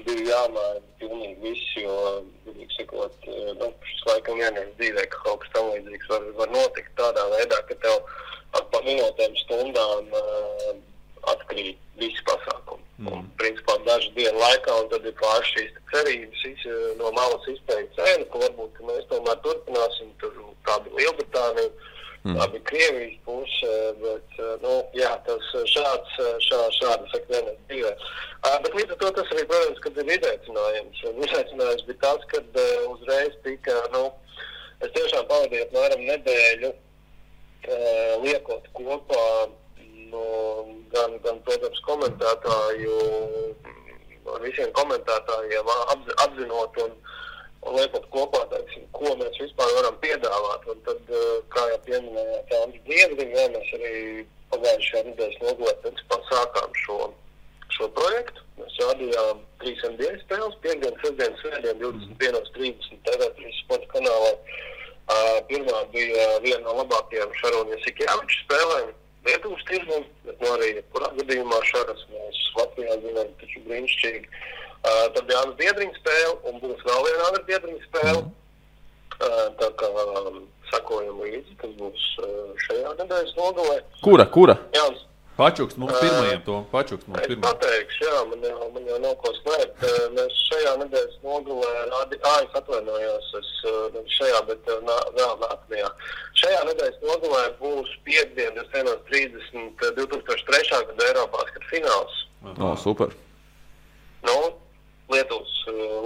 bija jāmaina pilnīgi viss, jo, vienīgi sakot, šis laikam vienreiz dzīvē, ka kaut kas tam līdzīgs var notikt tādā veidā, ka tev pa minūtēm stundām atkrīt visi pasākumi. Un, principā, dažu dienu laikā, un tad ir pāris šīs cerības no malas izpēja cēna, ka varbūt ka mēs tomēr turpināsim, tur tā bija Lielbritānija, tā bija Krievijas puse, bet, jā, tas šādi saka vienreiz dzīvē. Bet līdz ar to tas arī, protams, kad ir izaicinājums. Izaicinājums bija tas, kad uzreiz tika, es tiešām pavadīju apmēram nedēļu liekot kopā gan, protams, komentētāju, ar visiem komentētājiem apzinot un liekot kopā, teiksim, ko mēs vispār varam piedāvāt. Un tad, kā jau pieminējāt, Andris Biedriņš, mēs arī pagājušajā nedēļas nogalē, principā, sākām šo projektu. Mēs rādījām 3 dienas spēles, 5 sestdienas, svētdien, 21:30 TV3 sporta kanālā. Pirmā bija viena no labākajām Šarūna Jasikjāviča spēlēm. Lietuvas tirgu, bet arī kurā gadījumā Šaras mēs Latvijā zinām taču brīnišķīgi. Tad bija Andra Biedriņa spēle un būs vēl viena Andra Biedriņa spēle. Tā kā sakojam līdzi, tas būs šajā nedēļas nogalē. Kura? Jānis. Pačukst mums pirmajiem, to. Pačukst mums pirmajiem. Es pateikšu, jā, man jau nav ko slēpt. Mēs šajā nedēļas nogalē es atvainojos, šajā, bet vēl nākamajā. Šajā nedēļas nogalē būs piekdien 21:30 2003. Gada Eirobasket fināls. Super. Lietuvas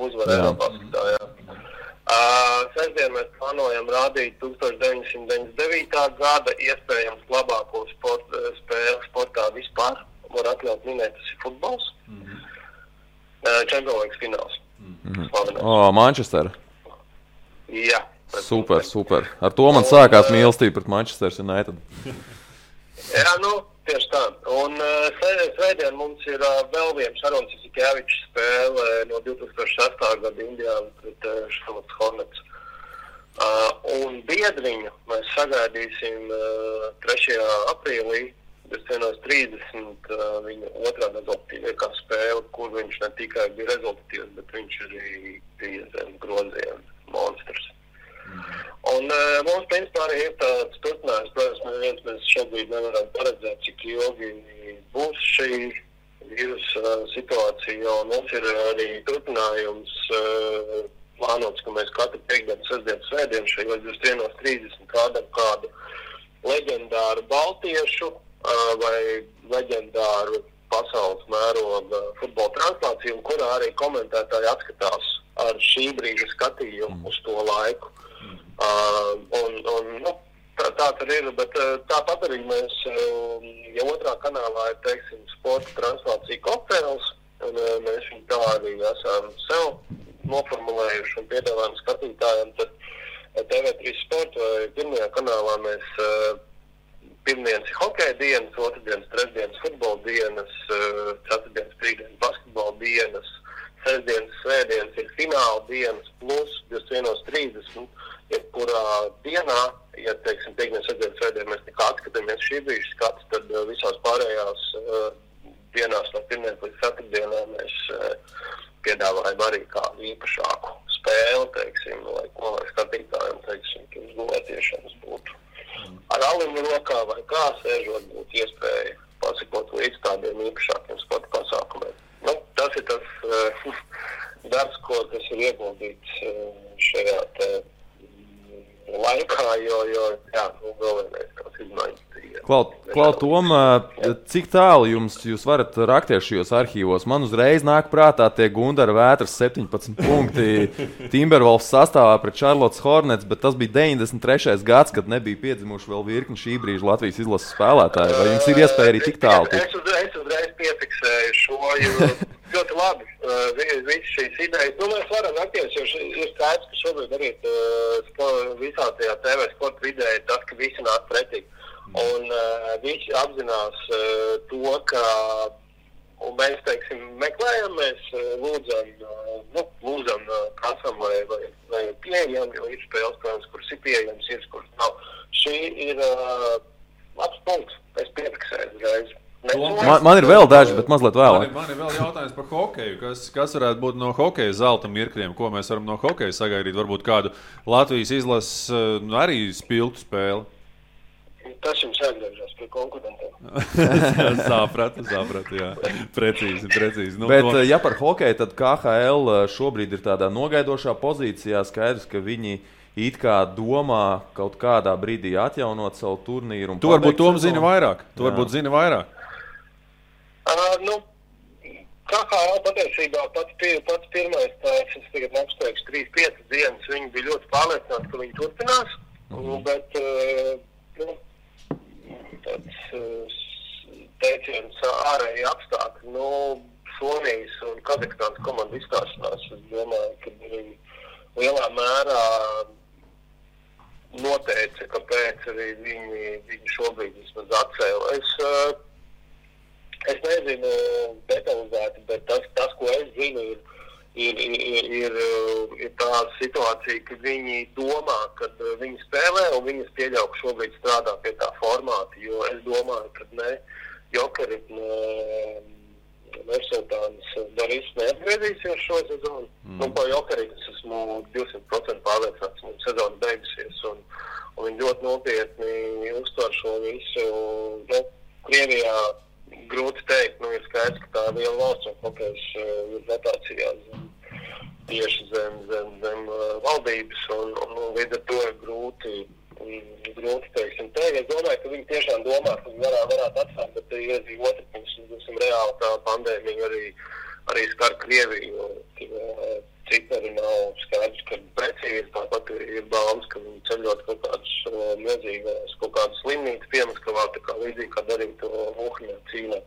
uzvara Eirobasketā, jā. Sestdien mēs plānojam rādīt 1999. Gada iespējams labāko spēli sportā vispār. Var atļaut minēt, tas ir futbols. Champions League fināls. Manchester. Jā, Super. Ar to man sākās mīlestība pret Manchester United. Jā, tieši tā. Un svētdien mums ir vēl viena Šarons Jasikevičs spēle no 2006. Gada Indiāna pret Charlotte Hornets. Un biedriņu mēs sagaidīsim 3. aprīlī, 21.30 viņa otrā rezultatīvākā spēle, kur viņš ne tikai bija rezultatīvs, bet viņš arī bija zem groziena monstrs. Un mums, principā, arī ir tāds turpinājums. Protams, mēs šobrīd nevaram paredzēt, cik ilgi būs šī vīrusa situācija, un mums ir arī turpinājums plānots, ka mēs katru piekdienu, sestdienu, svētdienu šajos 21.30 kādam kādu leģendāru baltiešu vai leģendāru pasaules mēroga futbola translāciju, un kurā arī komentētāji atskatās ar šī brīža skatījumu uz to laiku. Tā tur ir, bet tāpat arī mēs jau otrā kanālā ir, teiksim, sporta translācija kokteils, un mēs viņu tā arī esam sev noformulējuši un piedāvājam skatītājiem. Tad TV3 Sport vai pirmajā kanālā mēs pirmdienas ir hokeja dienas, otrdienas, trešdienas futbola dienas, ceturtdienas, piekdienas basketbola dienas, sestdienas, svētdienas ir fināla dienas plus 21.30. Jebkurā dienā, ja, teiksim, piekdienas, sestdienas, svētdien mēs nekā atskatāmies šī brīža skats, tad visās pārējās dienās no pirmdienas līdz ceturtdienām mēs piedāvājam arī kādu īpašāku spēli, teiksim, lai skatītājiem, teiksim, ka uzgulētiešanas būtu ar aliņu rokā vai kā sēžot, būtu iespēja pasakot līdz tādiem īpašākiem sporta pasākumiem. Tas ir tas darbs, kas ir ieguldīts šajā laikā, jo vēl vienreiz tās izmaiņas. Klau, Tom, cik tālu jūs varat rakties šajos arhīvos? Man uzreiz nāk prātā tie Gundara Vētras 17 punkti Timberwolves sastāvā pret Charlotte Hornets, bet tas bija 93. gads, kad nebija piedzimuši vēl virkni šī brīža Latvijas izlases spēlētāji. Vai jums ir iespēja arī tik tālu? Es uzreiz piefiksēju šo, jo ļoti labi visas šīs idejas. Mēs varam rakties, jo ir skaidrs, ka šobrīd arī visā tajā TV sporta vidē ir tas, ka visi nāk pretī. Un visi apzinās to, ka mēs, teiksim, meklējam, mēs lūdzam kasam vai pieejam, jo ir spēles, protams, kuras ir pieejams, ir, kuras nav. Šī ir labs punkts, es piefiksēju uzreiz. Man ir vēl daži, bet mazliet vēlāk. Man ir vēl jautājums par hokeju. Kas varētu būt no hokeja zelta mirkļiem? Ko mēs varam no hokeja sagaidīt? Varbūt kādu Latvijas izlases arī spilgtu spēli? Tas jums jāatgriežas pie konkurentiem. Sapratu, jā. Precīzi. Bet, ja par hokeju, tad KHL šobrīd ir tādā nogaidošā pozīcijā. Skaidrs, ka viņi it kā domā kaut kādā brīdī atjaunot savu turnīru. Tu varbūt Tom zini vairāk. KHL patiesībā pats pirmais tāds, es tagad apsteigšu 3-5 dienas, viņi bija ļoti pārliecināti, ka viņi turpinās, bet tāds teiciens ārēji apstākļi, Somijas un Kazahstānas komanda izstāšanās, es domāju, ka arī lielā mērā noteica, kāpēc arī viņi šobrīd vismaz atcēla. Es nezinu detalizēti, bet tas, ko es zinu, ir tā situācija, ka viņi domā, ka viņi spēlē un viņas pieļauj, ka šobrīd strādā pie tā formāta, jo es domāju, ka ne Jokeri, Mersultāns Darīs neatgriezīsies šo sezonu. Pa Jokeri es esmu 200% pārliecināts, un sezona beigusies, un viņi ļoti nopietni uztver šo visu. Krievijā grūti teikt, ir skaidrs, ka tā liela valsts un hokejs ir rotācijā tieši zem valdības, un līdz ar to ir grūti teiksim teikt. Es domāju, ka viņi tiešām domā, ka viņi varētu atstāt, bet ir arī otru pusi, reāli tā pandēmija arī skar Krieviju, cipari nav skaidrs, ka precīzi, tāpat ir baumas, ka viņi ceļot kaut kādas milzīgas, kaut kādas slimnītas Piemaskavā, tā kā līdzīgi, kā darīja to Uhaņā cīnā.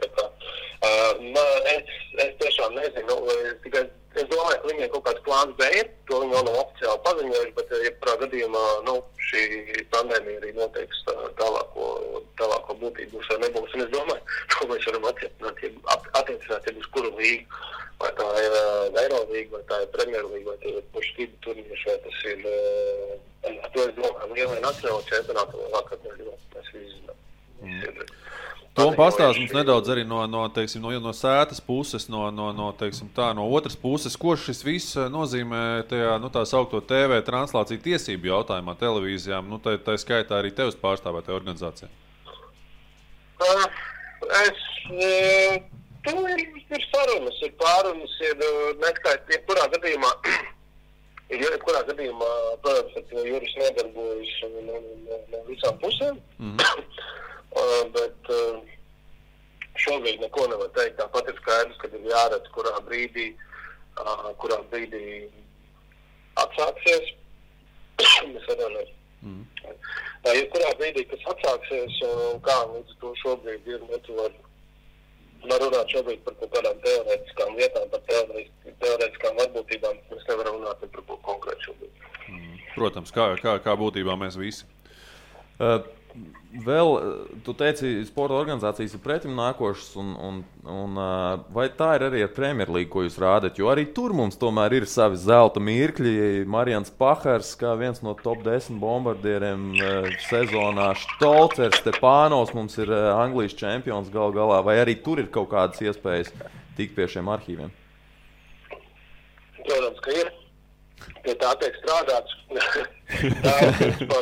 Es tiešām nezinu, es domāju, ka viņiem kaut kāds plāns B ir to viņi vēl nav oficiāli paziņojuši, bet jebkurā gadījumā, šī pandēmija arī noteiks tālāko būtību būs vai nebūs. Un es domāju, ko mēs varam attiecināt uz kuru līgu, vai tā ir Eirolīga, vai tā ir Premjerlīga, vai tie ir pušķību turnīši, vai tas ir, to es domāju, lielai nacionāla čempionāta vai vakar, mēs visi zinām. Tom pastāst mums nedaudz arī no sētas puses, no otras puses, ko šis viss nozīmē tajā, tā saukto TV translāciju tiesību jautājumā televīzijām, tā skaitā arī tevis pārstāvētajā organizācijā. Tur ir sarunas, ir pārunas, ir neskaidrs, jebkurā gadījumā, protams, ka Juris nedarbojas no visām pusēm, bet šobrīd neko nevar teikt. Tāpat ir skaidrs, kad ir jāredz, kurā brīdī atsāksies. Mēs atvainojamies. Kurā brīdī, kas atsāksies, un kā līdz to šobrīd ir, var runāt šobrīd par kaut kādām teorētiskām lietām, par teorētiskām varbūtībām. Mēs nevaram runāt par ko konkrētu šobrīd. Protams, kā būtībā mēs visi. Vēl, tu teici, sporta organizācijas ir pretim nākošas, un vai tā ir arī ar Premjerlīgu, ko jūs rādat? Jo arī tur mums tomēr ir savi zelta mirkļi. Marians Pahars, kā viens no top 10 bombardieriem sezonā, Štolcers, Stepānovs mums ir Anglijas čempions gal galā. Vai arī tur ir kaut kādas iespējas tikt pie šiem arhīviem? Protams, ka ir. Pie tā tiek strādāts.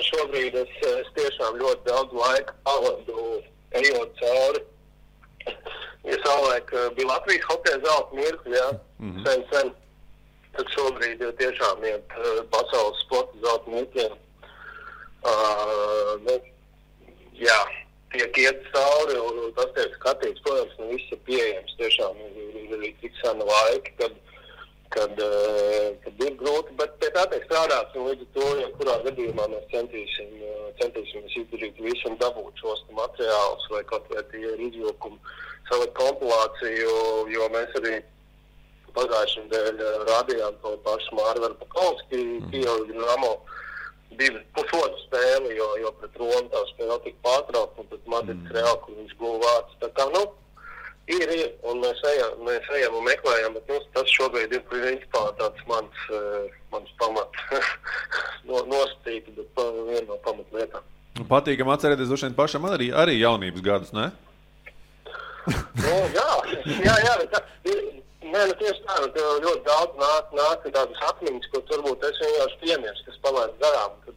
Šobrīd es tiešām ļoti daudz laika pavadu ejot cauri. Ja savulaik bija Latvijas hokeja zelta mirkļi, sen. Tad šobrīd tiešām iet pasaules sporta zelta mirkļiem. Tiek iet cauri, un tas tiek skatīts, protams, viss ir pieejams. Tiešām ir tik sena laika, kad ir grūti, bet pie tā tiek strādāts, un līdz to, kurā gadījumā mēs centīsimies izdarīt visu un dabūt šos materiālus, vai kaut vai tie ir izvilkumi, savu kompilāciju, jo mēs arī pagājušajā nedēļā rādījām to pašu Mārvaru Pakalski, Kijevu Dinamo, 2,5 spēli, jo pret Romu tā spēle tika pārtraukta, un pret Madrids Real, kur viņš guva vārds. Tā kā, ir, un mēs ejam un meklējam, bet tas šobrīd ir principā tāds mans pamats nosacīti, bet viena no pamatlietām. Patīkam atcerēties droši vien pašam arī jaunības gadus, ne? Tieši tā, ļoti daudz nāk tādas atmiņas, ko turbūt es vienkārši piemērs, kas palaid garām, kad,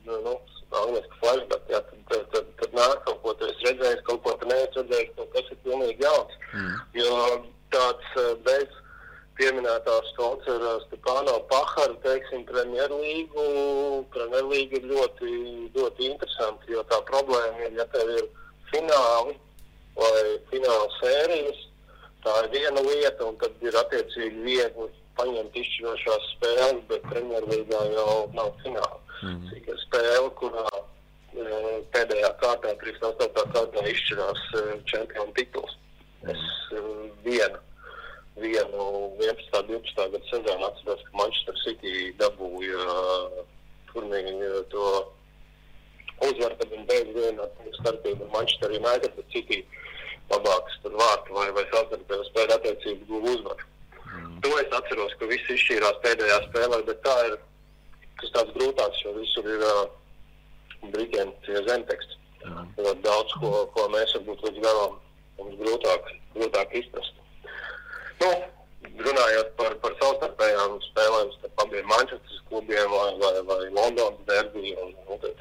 angliski flashback, tad nāk kaut ko, tu esi redzējis, kaut ko tu neesi redzējis, kaut kas ir pilnīgi jauns. Jo tāds bez pieminētās Štolcera Stepānova Pahara, teiksim, Premjerlīga ir ļoti, ļoti interesanti, jo tā problēma ir, ja tev ir fināli vai fināla sērijas, tā ir viena lieta, un tad ir attiecīgi viegli paņemt izšķirošās spēles, bet Premjerlīgā jau nav fināla. Ir spēle, kurā pēdējā kārtā, 38. kārtā izšķirās čempionu tituls. Es vienu 11. 12. gadu sezonu atceros, ka Manchester City dabūja turnīru to uzvaru, kad viņi beidz vienā starpību ar Manchester United, bet City labākas tur vārtu vai savstarpējo spēļu attiecību guva uzvaru. To es atceros, ka viss izšķīrās pēdējā spēlē, bet tā ir tas tāds grūtāks, jo visur ir Britiem tie zemteksti. Ļoti daudz, ko mēs varbūt līdz galam mums grūtāk izprast. Runājot par savstarpējām spēlēm starp abiem Manchesteras klubiem vai Londonas derby un tā.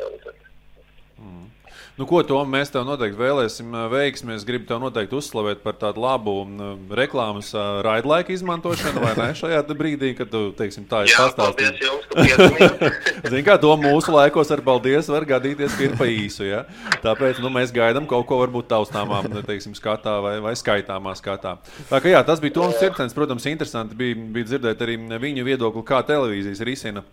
Ko, Tom, mēs tev noteikti vēlēsim veiksmi. Es gribu tev noteikti uzslavēt par tādu labu reklāmas raidlaika izmantošanu, vai ne, šajā brīdī, kad tu, teiksim, tā ir pastāstījis. Jā, paldies jums, ka piesamījāt. Zini, kā to mūsu laikos ar paldies var gadīties, ka ir pa īsu, ja? Tāpēc, mēs gaidām kaut ko varbūt taustāmā, teiksim, skatā vai skaitāmā skatā. Tā kā jā, tas bija Toms Cirkstens, protams, interesanti bija dzirdēt arī viņu viedokli, kā televīzijas risina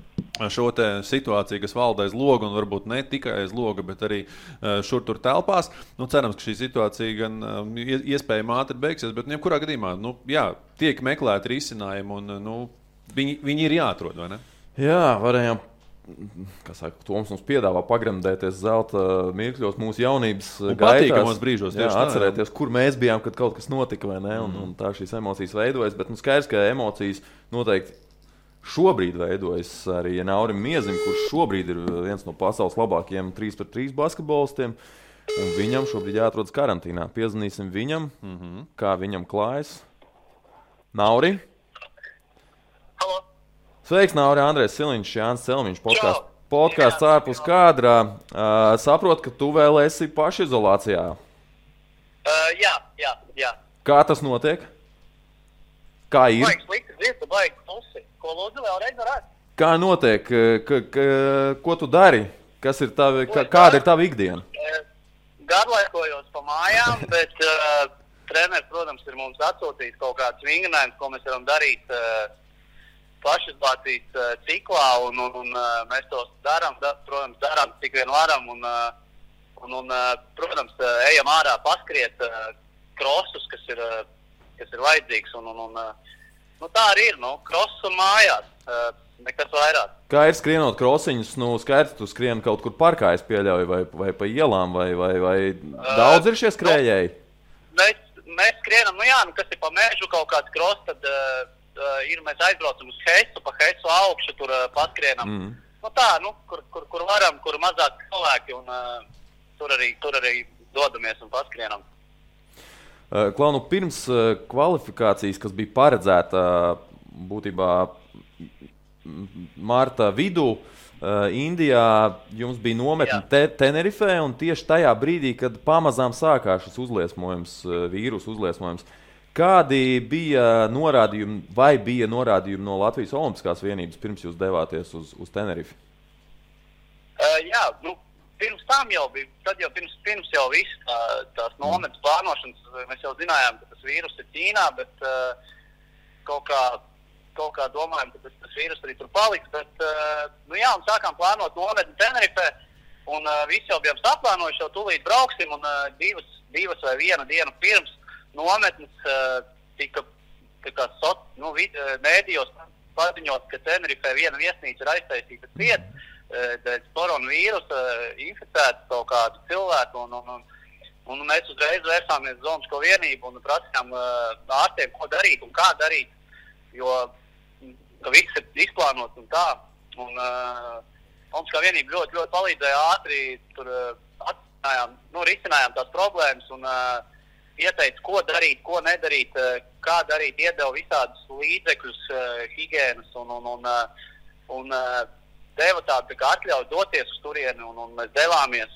šo te situāciju, kas valda aiz loga, un varbūt ne tikai aiz loga, bet arī šur tur telpās. Cerams, ka šī situācija gan iespējami ātri beigsies, bet jebkurā gadījumā, tiek meklēti risinājumi, un viņi ir jāatrod, vai ne? Jā, varējām. Toms mums piedāvā pagremdēties zelta mirkļos mūsu jaunības patīkamos brīžos. Jā, atcerēties, kur mēs bijām, kad kaut kas notika, vai ne? Un tā šīs emocijas veidojas. Bet skaidrs, ka emocijas noteikti šobrīd veidojas arī Naurim Miezim, kurš šobrīd ir viens no pasaules labākajiem 3-3 basketbolistiem. Un viņam šobrīd jāatrodas karantīnā. Piezvanīsim viņam, kā viņam klājas. Nauri? Halo! Sveiks, Nauri, Andrejs Siliņš, Jānis Celmiņš, podkāsts ārpus kadrā. Saprotu, ka tu vēl esi pašizolācijā. Jā. Kā tas notiek? Kā ir? Baigs slikti dzirdu, baigs pusi. Ko lūdzu vēlreiz varētu? Kā notiek? Ko tu dari? Kāda ir tava ikdiena? Garlaikojos pa mājām, bet treneris, protams, ir mums atsūtījis kaut kāds vingrinājums, ko mēs varam darīt pašizolācijas ciklā, un mēs tos darām, cik vien varam, un protams, ejam ārā paskriet krosus, kas ir vajadzīgs, un tā arī ir, krosus un mājās, nekas vairāk. Kā ir skrienot krosiņus? Skaidrs, tu skrien kaut kur parkā, es pieļauju, vai pa ielām, vai daudz ir šie skrējēji? Mēs skrienam, kas ir pa mežu kaut kāds kros, tad mēs aizbraucam uz Heisu, pa Heisu augšu, tur paskrienam. Kur varam, kur mazāk cilvēki, un tur arī dodamies un paskrienam. Klau, pirms kvalifikācijas, kas bija paredzēta būtībā marta vidū, Indijā jums bija nometne Tenerifē, un tieši tajā brīdī, kad pamazām sākās šis vīrusu uzliesmojums, kādi bija norādījumi, vai bija norādījumi no Latvijas Olimpiskās vienības, pirms jūs devāties uz Tenerifi? Pirms tam jau bija, pirms jau viss tās nometnes plānošanas, mēs jau zinājām, ka tas vīrus ir Ķīnā, bet kaut kā domājam, ka tas vīrus arī tur paliks, bet un sākām plānot nometni Tenerifē, un visi jau bijām saplānojuši, jau tūlīt brauksim, un divas vai viena diena pirms nometnes tika mēdījos paziņot, ka Tenerifē viena viesnīca ir aiztaisīta cieta dēļ koronavīrusa, inficēta kaut kādu cilvēku, un mēs uzreiz vērsāmies uz Olimpisko vienību un prasījām ārstiem, ko darīt un kā darīt, jo ka viss ir izplānots un tā. Un Olimpiskā vienība ļoti, ļoti palīdzēja ātri, tur risinājām tās problēmas un ieteica, ko darīt, ko nedarīt, kā darīt, iedeva visādus līdzekļus, higienas un deva tādu atļauju doties uz turieni, un mēs devāmies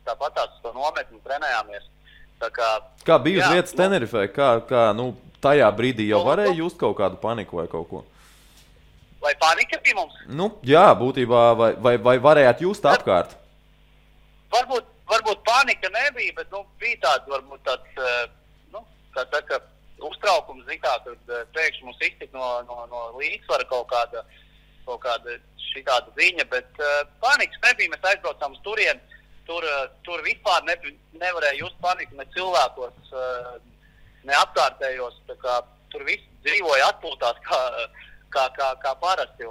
tāpatās uz to nometni un trenējāmies. Kā bija uz vietas Tenerifē? Tajā brīdī jau varēja just kaut kādu paniku vai kaut ko? Vai panika bija mums? Jā, būtībā, vai varētu just apkārt? Varbūt panika nebija, bet bija tāds uztraukums, kad pēkšņi mums iztika no līdzsvara kaut kāda šitāda ziņa, bet panikas nebija, mēs aizbraucām uz turieni, tur vispār nevarēja just paniku ne cilvēkos, ne apkārtējos, tur viss dzīvoja atpūtās kā parasti.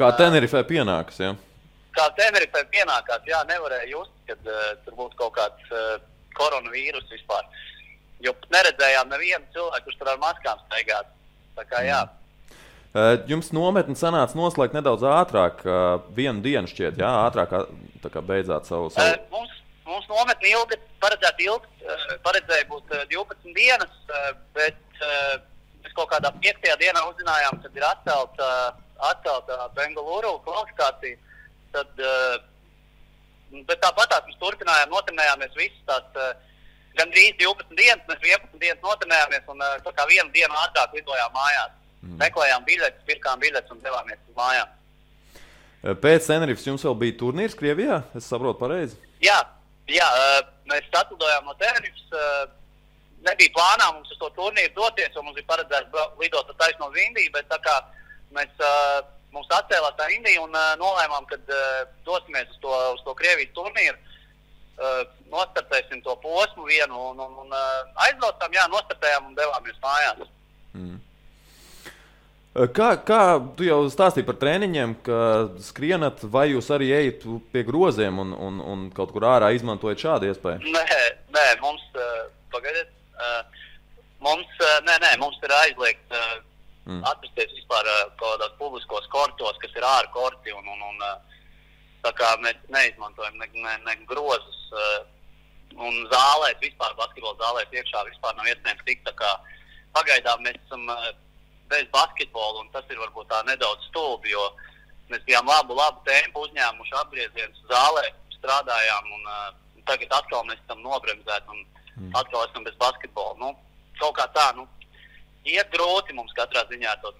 Kā Tenerifē pienākas, ja? Kā Tenerifē pienākās, nevarēja just, kad tur būtu kaut kāds koronavīrus vispār. Jo neredzējām nevienu cilvēku, kurš tur ar maskām staigāt. Jums nometni sanāca noslēgt nedaudz ātrāk, vienu dienu šķiet, ātrāk beidzāt savu... Mums nometni paredzēja būt 12 dienas, bet mēs kaut kādā 5. dienā uzzinājām, kad ir atcelta Bengaluru kvalifikācija. Bet tāpatās mēs turpinājām, notrenējāmies visas tās gandrīz 12 dienas, mēs 11 dienas notrenējāmies un vienu dienu ātrāk lidojām mājās. Meklējām biļetes, pirkām biļetes un devāmies uz mājām. Pēc Tenerifes jums vēl bija turnīrs Krievijā? Es saprotu pareizi? Jā, mēs atlidojām no Tenerifes. Nebija plānā mums uz to turnīru doties, jo mums bija paredzēts lidot taisno uz Indiju, bet tā kā mums atcēlās tā Indija un nolēmām, kad dosimies uz to Krievijas turnīru, nostartēsim to posmu vienu un aizbraucām, nostartējām un devāmies mājās. Kā tu jau stāstīji par treniņiem, ka skrienat, vai jūs arī ejat pie groziem un kaut kur ārā izmantojat šādu iespēju? Nē, mums, pagaidiet, mums ir aizliegts atrasties vispār kaut kādās publiskos kortos, kas ir ārā korti, un tā kā mēs neizmantojam ne grozus, un zālēs, vispār basketbola zālēs iekšā vispār nav iespējams tikt, tā kā pagaidām mēs esam bez basketbola, un tas ir varbūt tā nedaudz stulbi, jo mēs bijām labu tempu uzņēmuši apgriezienus zālē, strādājām, un tagad atkal mēs esam nobremzēti, un atkal esam bez basketbola. Nu, kaut kā tā, iet grūti mums katrā ziņā to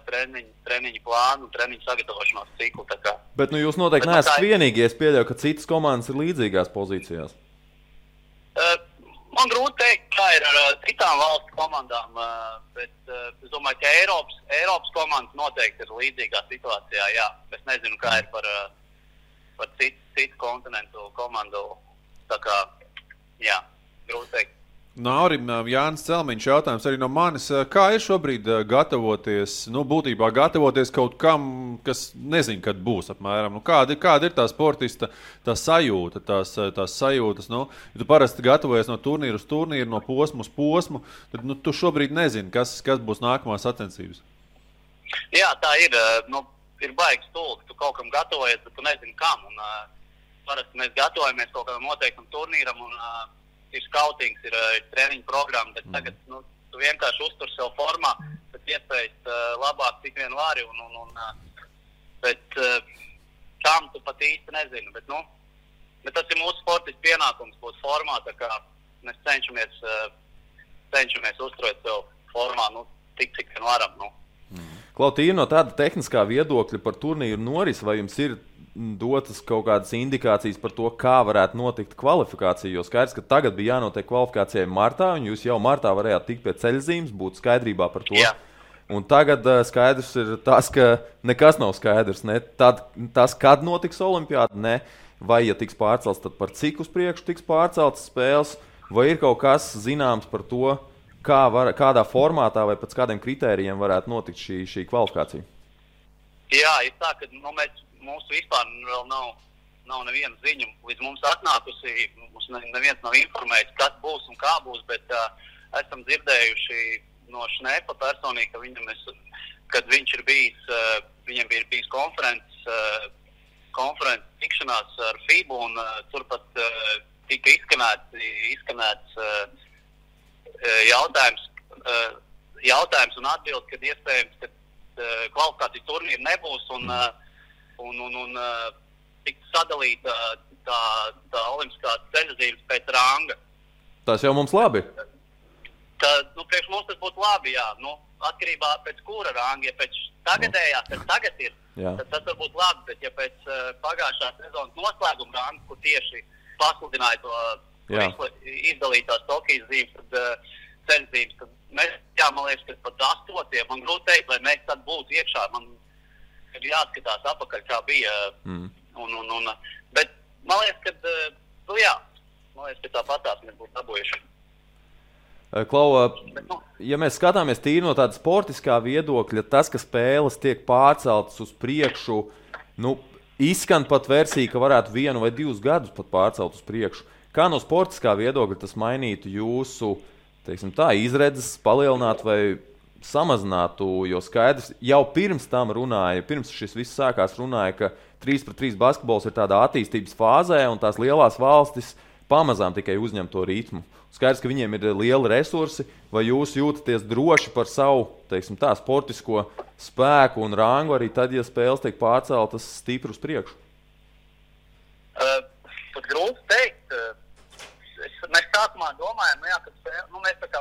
treniņu plānu, treniņu sagatavošanos ciklu. Tā kā. Bet jūs noteikti neesat vienīgie, es pieļauju, ka citas komandas ir līdzīgās pozīcijās. Man grūti teikt, kā ir ar citām valstu komandām, bet es domāju, ka Eiropas komandas noteikti ir līdzīgā situācijā, jā. Es nezinu, kā ir par citu kontinentu komandu, tā kā, jā, grūti teikt. Naurim, Jānis Celmiņš jautājums arī no manis. Kā ir šobrīd gatavoties, būtībā gatavoties kaut kam, kas nezinu, kad būs apmēram? Kāda ir tā sportista, tā sajūta, tās sajūtas? Ja tu parasti gatavojies no turnīra uz turnīru, no posmu uz posmu, tad tu šobrīd nezini, kas būs nākamās sacensības. Jā, tā ir. Ir baigi stulbi. Tu kaut kam gatavojies, bet tu nezini kam. Un, parasti mēs gatavojamies kaut kādam noteiktam turnīram un ir skautings, ir treniņu programma, bet tagad tu vienkārši uztur sev formā, bet iespējas labāk cik vien vari, bet tam tu pat īsti nezini. Bet tas ir mūsu sportists pienākums būt formā, tā kā mēs cenšamies uzturēt sev formā, cik vien varam. Klautīna, no tāda tehniskā viedokļa par turnīru norisi, vai jums ir dotas kaut kādas indikācijas par to, kā varētu notikt kvalifikācija, jo skaidrs, ka tagad bija jānotiek kvalifikācijai martā, un jūs jau martā varējāt tikt pie ceļzīmes, būt skaidrībā par to. Jā. Un tagad skaidrs ir tas, ka nekas nav skaidrs, ne tas, kad notiks olimpiāda, ne, vai ja tiks pārcelts, tad par cik uz priekšu tiks pārceltas spēles, vai ir kaut kas zināms par to, kādā formātā vai pēc kādiem kritērijiem varētu notikt šī kvalifikācija? Jā, ir tā, ka mūsu vispār vēl nav neviena ziņa līdz mums atnākusi. Mums neviens nav informēts, kas būs un kā būs, bet esam dzirdējuši no Šnepa personīgi, ka kad viņš ir bijis, viņam bija bijis konferences tikšanās ar FIBU, un turpat tika izskanēts jautājums un atbildi, kad iespējams, ka kvalifikācijas turnīra nebūs un tiks sadalīta tā olimpiskā ceļazīmes pēc ranga. Tas jau mums labi. Priekš mums tas būtu labi, jā. Atkarībā pēc kura ranga, ja pēc tagadējās, kas tagad ir, tad tas var būt labi, bet ja pēc pagājušā sezonas noslēguma ranga, kur tieši pasludināja to izdalītās Tokijas zīmes, tad ceļzīmes, tad mēs, man liekas, ka pat 8. Man grūti teikt, lai mēs tad būtu iekšā. Man ir jāskatās apakaļ, kā bija. Bet man liekas, ka tāpatās mēs būtu dabūjuši. Klau, ja mēs skatāmies tīri no tāda sportiskā viedokļa, tas, ka spēles tiek pārceltas uz priekšu, izskan pat versija, ka varētu 1 vai 2 gadus pat pārcelt uz priekšu. Kā no sportiskā viedokļa tas mainītu jūsu, izredzes, palielinātu vai samazinātu, jo skaidrs, jau pirms tam runāja, pirms šis viss sākās runāja, ka 3-3 basketbols ir tādā attīstības fāzē un tās lielās valstis pamazām tikai uzņem to ritmu. Skaidrs, ka viņiem ir lieli resursi, vai jūs jūtaties droši par savu, sportisko spēku un rangu arī tad, ja spēles tiek pārceltas stipri uz priekšu? Pat grūti teikt. Mēs sākumā domājam, ka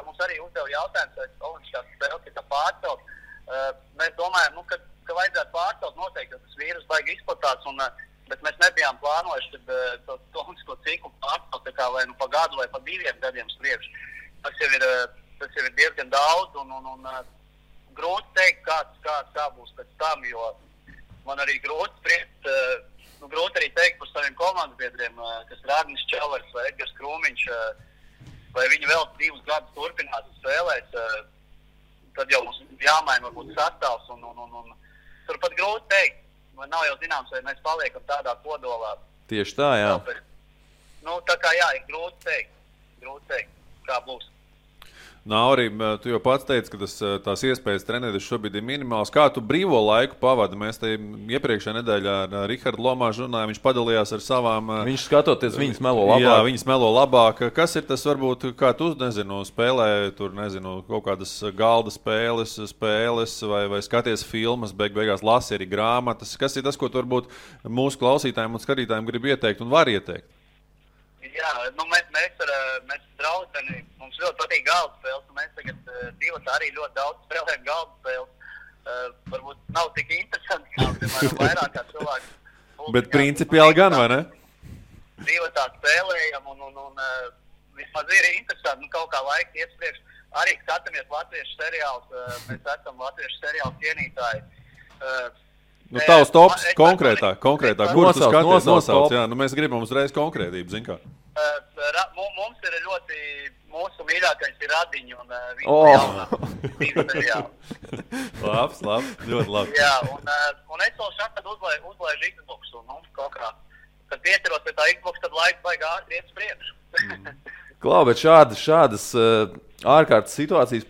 mums arī uzdeva jautājums, vai olimpiskās spēles ir pārcelt. Mēs domājam, ka vajadzētu pārcelt noteikti, ka tas vīrus baigi izplatās, bet mēs nebijām plānojuši, kad to olimpisko ciklu pārcelt vai pa gadu vai pa 2 gadiem spriekš. Tas jau ir diezgan daudz un grūti teikt, kā būs pēc tam, jo man arī grūti spriekt. Grūti arī teikt par saviem komandas biedriem, kas ir Arnis Čelers vai Edgars Krūmiņš, vai viņi vēl 2 gadus turpinās spēlēt. Tad jau mums jāmaina varbūt sastāvs un turpat grūti teikt. Man nav jau zināms, vai mēs paliekam tādā kodolā. Tieši tā, jā. Nu, tā kā jā, ir grūti teikt, kā būs. Nauri, tu jau pats teici, ka tās iespējas trenēties šobrīd ir minimāls. Kā tu brīvo laiku pavadi? Mēs te iepriekšējā nedēļā ar Rihardu Lomāžu runājām, viņš padalījās ar savām... Viņš skatoties, viņas melo labāk. Jā, viņas melo labāk. Kas ir tas, varbūt, kā tu, spēlē tur, kaut kādas galda spēles vai skaties filmas, beigās lasi arī grāmatas? Kas ir tas, ko tu varbūt mūsu klausītājiem un skatītājiem grib ieteikt un var ieteikt? Jā, nu mēs ar draudzeni, mums ļoti patīk galda spēles, un mēs tagad divatā arī ļoti daudz spēlējam galda spēles. Varbūt nav tik interesanti, kā, piemēram, vairāk kā cilvēki. Bet principiāli gan, vai ne? Divatā spēlējam, un vismaz ir interesanti, kaut kā laika iet priekš. Arī skatāmies latviešu seriālus, mēs esam latviešu seriālu cienītāji. Nu, tavs tops konkrētāk. Kurus tu skaties? Nosauc, jā. Nu, mēs gribam uzreiz konkrētību, zin kā. Mums ir ļoti, mūsu mīļākais ir Radiņi un viņa jaunā seriāli. Labs, ļoti labi. Jā, un es vēl šādi uzlaižu Xbox, un kaut kā, kad pieceros pie tā Xbox, tad laiks vajag ātri iet priekšu. Klau, bet šādas ārkārtas situācijas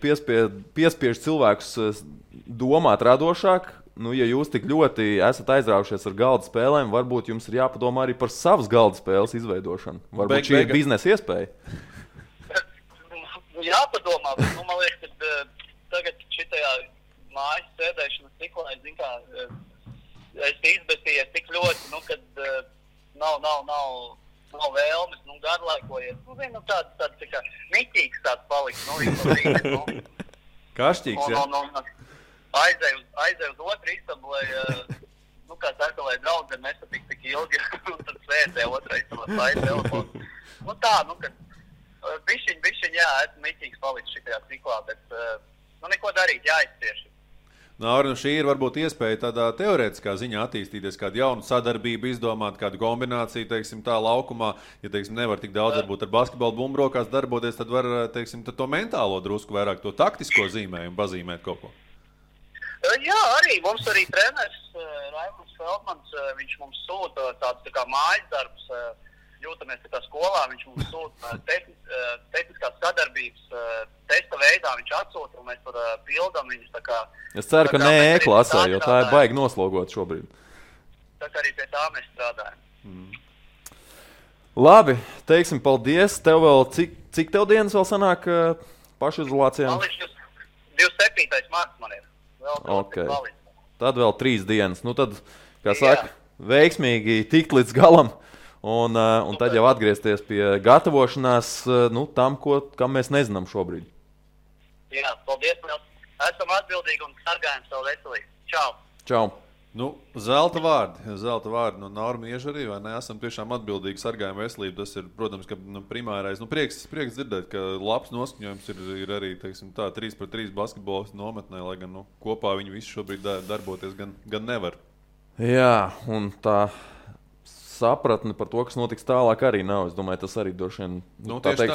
piespiež cilvēkus domāt radošāk. Nu, ja jūs tik ļoti esat aizraujušies ar galda spēlēm, varbūt jums ir jāpadomā arī par savas galda spēles izveidošanu. Varbūt šī ir biznesa iespēja. Jāpadomā, bet man liekas, ka tagad šitajā mājas sēdēšanas ciklā, es zinu kā, es izbēstījies tik ļoti, kad nav vēlmes, garlaikojies. Tāds tā kā miķīgs tāds paliks, Kašķīgs, jā. Aizēju uz otru istabu, lai draudzene nesatik tik ilgi, un tad sēdē otrā istabā slaidu telefonu. Kad bišķiņ, jā, esmu miķīgs palicis šitajā ciklā, bet neko darīt, jāizcieš. Nauri, šī ir varbūt iespēja tādā teorētiskā ziņā attīstīties, kādu jaunu sadarbību izdomāt, kādu kombināciju, tā laukumā. Ja, nevar tik daudz varbūt ar basketbolu bumbrokās darboties, tad var, tad to mentālo drusku vairāk, to taktisko zīmējumu pazīmēt kaut ko. Jā, mums arī treneris Raimunds Feldmans, viņš mums sūta tāds tā kā mājas darbs, jūtamies tā kā skolā, viņš mums sūta tehniskās sadarbības testa veidā, viņš atsūta, un mēs tur pildam viņus tā kā... Es ceru, ka ne E-klasē, jo tā ir baigi noslogot šobrīd. Tā kā arī pie tā mēs strādājam. Labi, teiksim paldies. Tev vēl, cik tev dienas vēl sanāk pašizolācijām? 27. marts man ir. Okay. Tad vēl 3 dienas. Nu tad, kā saka, veiksmīgi tikt līdz galam un tad jau atgriezties pie gatavošanās tam, kam mēs nezinām šobrīd. Jā, paldies. Esam atbildīgi un sargājam savu veselību. Čau! Čau! Nu, zelta vārdi no Naura Mieža arī, vai ne? Esam tiešām atbildīgi sargājam veselību. Tas ir, protams, ka primārais. Prieks dzirdēt, ka labs noskaņojums ir arī, 3-3 basketbolistu nometnē, lai gan kopā viņi visi šobrīd darboties gan nevar. Jā, un tā sapratne par to, kas notiks tālāk, arī nav. Es domāju, tas arī droši vien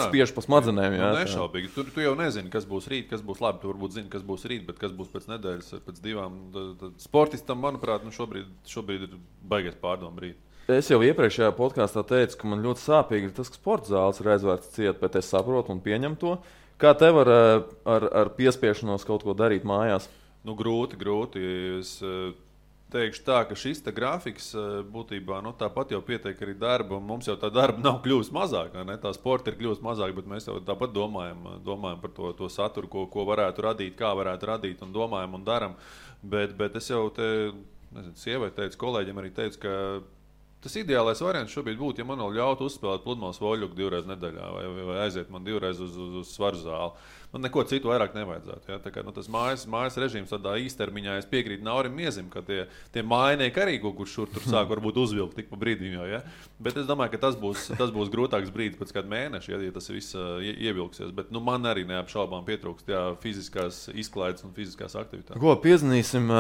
spiež pa smadzenēm. Jā, nešaubīgi. Tu jau nezini, kas būs rīt, kas būs labi. Tu varbūt zini, kas būs rīt, bet kas būs pēc nedēļas, pēc 2. Sportistam, manuprāt, šobrīd ir baigais pārdomu rīt. Es jau iepriekšējā podkāstā teicu, ka man ļoti sāpīgi ir tas, ka sporta zāles ir aizvērts ciet, bet es saprotu un pieņemu to. Kā tev ar piespiešanos kaut ko darīt mājās? Nu, grūti. Es teikšu tā, ka šis grafiks būtībā tāpat jau pietiek arī darba, un mums jau tā darba nav kļūst mazāk, ne? Tā sporta ir kļūst mazāk, bet mēs jau tāpat domājam par to saturu, ko varētu radīt, kā varētu radīt, un domājam un daram. Bet es jau sievai teicu, kolēģiem arī teicu, ka tas ideālais variants šobrīd būtu, ja man vēl ļautu uzspēlēt pludmales voļuku 2 reizes nedēļā vai aiziet man 2 reizes uz svaru zāli. Man neko citu vairāk nevajadzētu. Ja? Tā kā, tas mājas režīms tādā īstermiņā, es piekrītu Naurim Miezim, ka tie mājnieki arī kaut kur šur tur sāk varbūt uzvilkt tik pa brīdim jau. Ja? Bet es domāju, ka tas būs grūtāks brīdis pēc kāda mēneša, ja tas viss ievilksies. Bet man arī neapšaubām pietrūkst fiziskās izklaides un fiziskās aktivitātes. Ko piezvanīsim,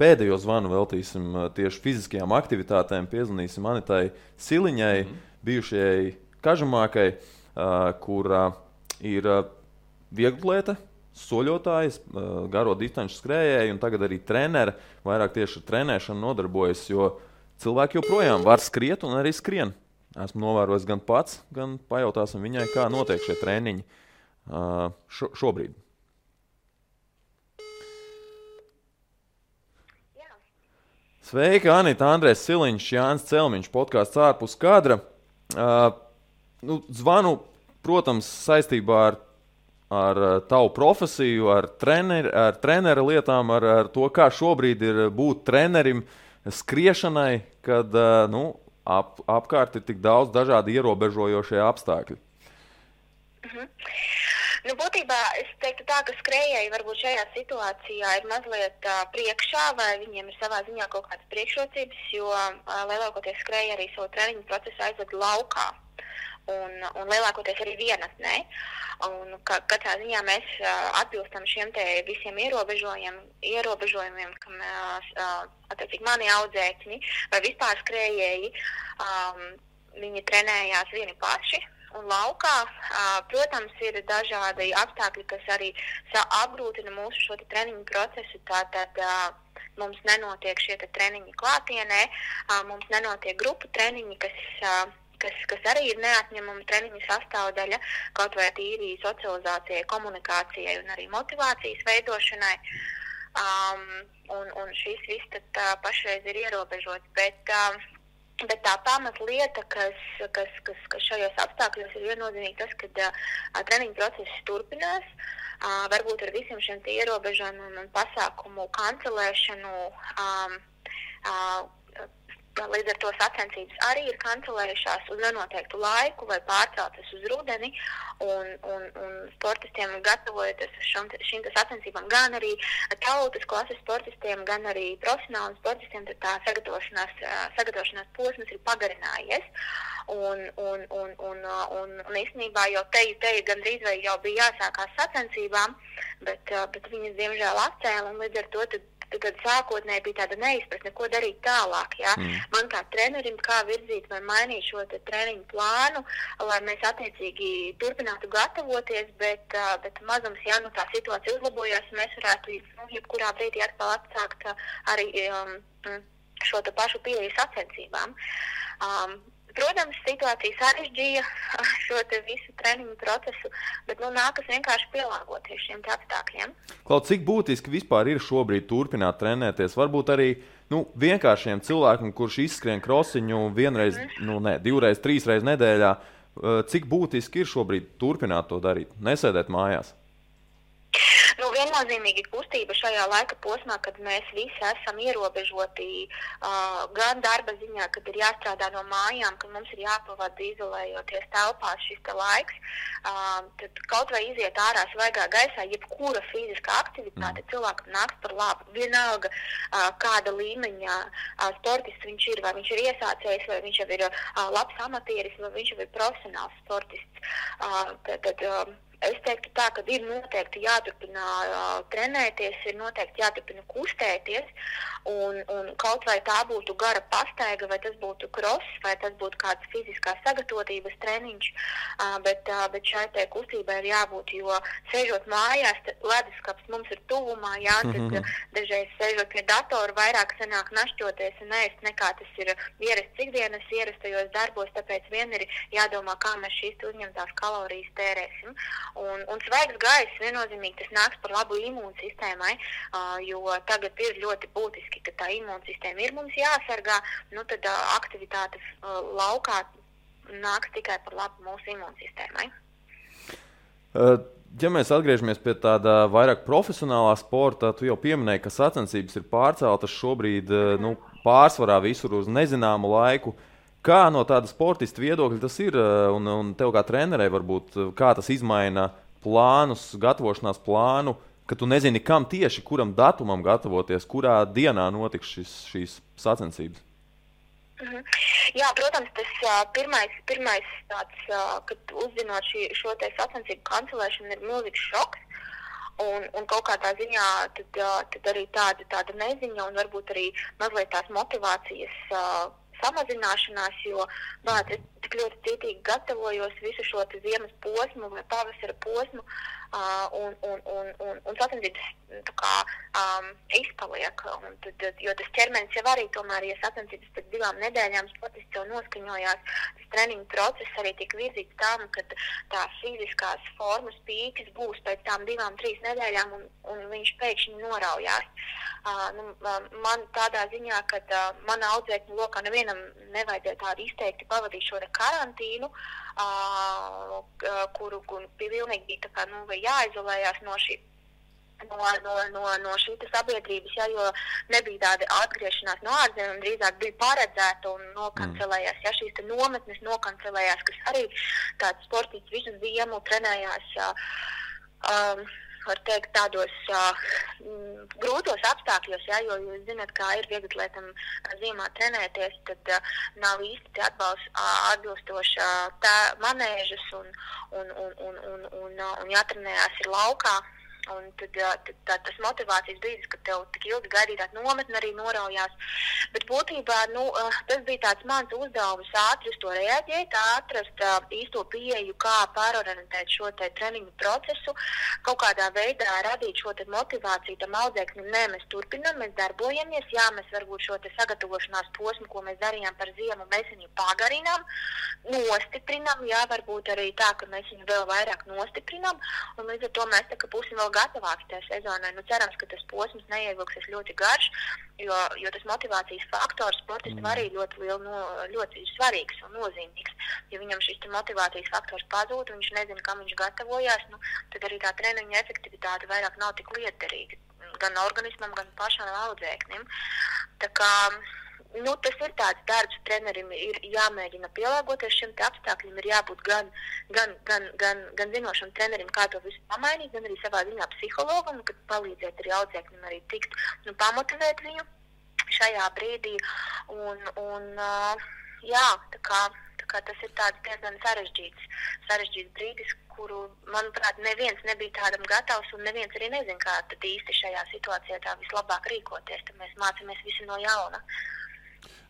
pēdējo zvanu veltīsim tieši fiziskajām aktivitātēm, piezvanīsim Anitai Siliņai, bijušajai kažamākai, kura ir vieglatlēte, soļotājs, garo distanču skrējēji un tagad arī treneri vairāk tieši ar trenēšanu nodarbojas, jo cilvēki joprojām var skriet un arī skrien. Esmu novērojis gan pats, gan pajautāsim viņai, kā notiek šie treniņi šobrīd. Sveiki, Anita, Andrēs Siliņš, Jānis Celmiņš, podkāsts ārpus kadra. Zvanu, protams, saistībā ar tavu profesiju, ar trenera lietām, ar to, kā šobrīd ir būt trenerim skriešanai, kad apkārt ir tik daudz dažādi ierobežojošie apstākļi. Būtībā es teiktu tā, ka skrējēji varbūt šajā situācijā ir mazliet priekšā, vai viņiem ir savā ziņā kaut kādas priekšrocības, jo lielākoties skrējēji arī savu treniņu procesu aizved laukā. Un lielākoties arī vienatnē. Un katrā ziņā mēs atbilstam šiem te visiem ierobežojumiem, kam attiecīgi mani audzēkņi vai vispār skrējēji, viņi trenējās vieni paši un laukā. Protams, ir dažādi apstākļi, kas arī apgrūtina mūsu šo treniņu procesu. Tātad mums nenotiek šie treniņi klātienē, mums nenotiek grupu treniņi, kas arī ir neatņemama treniņa sastāvdaļa, kaut vai tīri socializācijai, komunikācijai un arī motivācijas veidošanai. Un šis viss tad pašreiz ir ierobežots, bet tā pamatlieta, kas šajos apstākļos ir viennozīmīgi tas, ka treniņa process turpinās, varbūt ar visiem šiem ierobežojumiem un pasākumu kancelēšanu, līdz ar to sacensības arī ir kancelējušās uz nenoteiktu laiku vai pārceltas uz rudeni, un sportistiem gatavojoties šīm sacensībām, gan arī tautas klases sportistiem, gan arī profesionāliem sportistiem, tad tā sagatavošanās posms ir pagarinājies. Un īstenībā jau te gandrīz vai jau bija jāsākās sacensībām, bet viņas diemžēl atcēla, un līdz ar to tad sākotnēji bija tāda neizpratne, ko darīt tālāk. Ja? Man kā trenerim, kā virzīt vai mainīt šo treniņu plānu, lai mēs attiecīgi turpinātu gatavoties, bet mazums, ja tā situācija uzlabojās, mēs varētu jebkurā brīdī atkal atsākt arī šo pašu pieeju sacensībām. Protams, situācija sarežģīja šo visu treniņu procesu, bet nākas vienkārši pielāgoties šiem apstākļiem. Klaud, cik būtiski vispār ir šobrīd turpināt trenēties? Varbūt arī vienkāršiem cilvēkiem, kurš izskrien krosiņu vienreiz, divreiz, trīsreiz nedēļā, cik būtiski ir šobrīd turpināt to darīt, nesēdēt mājās? Viennozīmīgi kustība šajā laika posmā, kad mēs visi esam ierobežoti gan darba ziņā, kad ir jāstrādā no mājām, kad mums ir jāpavada izolējoties telpās šis laiks, tad kaut vai iziet ārā svaigā gaisā, jebkura fiziskā aktivitāte cilvēkam nāks par labu. Vienalga, kāda līmeņa sportists viņš ir, vai viņš ir iesācējs, vai viņš jau ir labs amatieris, vai viņš jau ir profesionāls sportists. Es teiktu tā, ka ir noteikti jāturpina trenēties, ir noteikti jāturpina kustēties, un kaut vai tā būtu gara pastaiga, vai tas būtu cross, vai tas būtu kāds fiziskās sagatavotības treniņš, bet šai te kustībai ir jābūt, jo sēžot mājās, leduskapis mums ir tuvumā, tad dažreiz sēžot pie datora vairāk sanāk našķoties un ēst, nekā tas ir ierasts ikdienas ierastajos darbos, tāpēc vien ir jādomā, kā mēs šīs uzņemtās kalorijas tērēsim. Un svaigs gaiss viennozīmīgi tas nāks par labu imūnsistēmai, jo tagad ir ļoti būtiski, ka tā imūnsistēma ir mums jāsargā, tad aktivitātes laukā nāks tikai par labu mūsu imūnsistēmai. Ja mēs atgriežamies pie tāda vairāk profesionālā sporta, tu jau pieminēji, ka sacensības ir pārceltas šobrīd pārsvarā visur uz nezināmu laiku. Kā no tāda sportista viedokļa tas ir, un tev kā trenerei varbūt, kā tas izmaina plānus, gatavošanās plānu, ka tu nezini, kam tieši, kuram datumam gatavoties, kurā dienā notiks šīs sacensības? Jā, protams, tas pirmais tāds, kad uzzinot šo te sacensību kancelēšanu, ir milzīgs šoks. Un kaut kādā ziņā tad arī tāda neziņa un varbūt arī mazliet tās motivācijas samazināšanās, jo es tik ļoti cītīgi gatavojos visu šo ziemas posmu vai pavasara posmu, un sacensības tā kā izpaliek. Jo tas ķermenis jau arī tomēr, ja sacensības pēc 2 nedēļām sportists jau noskaņojās, tas treniņu process arī tika virzīts tam, ka tās fiziskās formas pīkas būs pēc tām 2-3 nedēļām un viņš pēkšņi noraujās. Man tādā ziņā, ka mana audzēkņu lokā nevienam nevajadzēja tādu izteikti pavadīt šo karantīnu, kuru pilnīgi bija tā kā, jāizolējās no šī sabiedrības, jo nebija tāda atgriešanās no ārzemēm, drīzāk bija paredzēta un nokancelējās. Šīs nometnes nokancelējās, kas arī tāds sportists visu ziemu trenējās, var teikt, tādos grūtos apstākļos, jo jūs zināt, kā ir vieglatlētam ziemā trenēties, tad nav īsti atbilstoša manēžas un jātrenējās ir laukā. Un tad tas motivācijas brīdis, kad tev tik ilgi gaidītāt nometni arī noraujās. Bet būtībā, tas bija tāds mans uzdevums ātri uz to reaģēt, atrast īsto pieeju, kā pārorientēt šo te treniņu procesu, kaut kādā veidā radīt šo te motivāciju tam audzēknim. Nē, mēs turpinam, mēs darbojamies, mēs varbūt šo te sagatavošanās posmu, ko mēs darījām par ziemu, mēs viņu pagarinām, nostiprinām, varbūt arī tā, ka mēs viņu vēl vairāk nostiprinām, un līdz ar to mēs tā, ka būsim vēl gatavāks tajā sezonai. Cerams, ka tas posms neievilksies ļoti garš, jo tas motivācijas faktors sportistam arī ļoti svarīgs un nozīmīgs. Ja viņam šis motivācijas faktors pazūd un viņš nezina, kam viņš gatavojās, tad arī tā treniņa efektivitāte vairāk nav tik lietderīga gan organismam, gan pašam audzēknim. Tā kā tas ir tāds darbs, trenerim ir jāmēģina pielāgoties šim te apstākļiem, ir jābūt gan zinošam trenerim, kā to visu pamainīt, gan arī savā ziņā psihologam, kad palīdzēt arī audzēknim arī tikt, pamotivēt viņu šajā brīdī. Tā kā tas ir tāds diezgan sarežģīts brīdis, kuru, manuprāt, neviens nebija tādam gatavs un neviens arī nezin, kā tad īsti šajā situācijā tā vislabāk rīkoties, tad mēs mācāmies visi no jauna.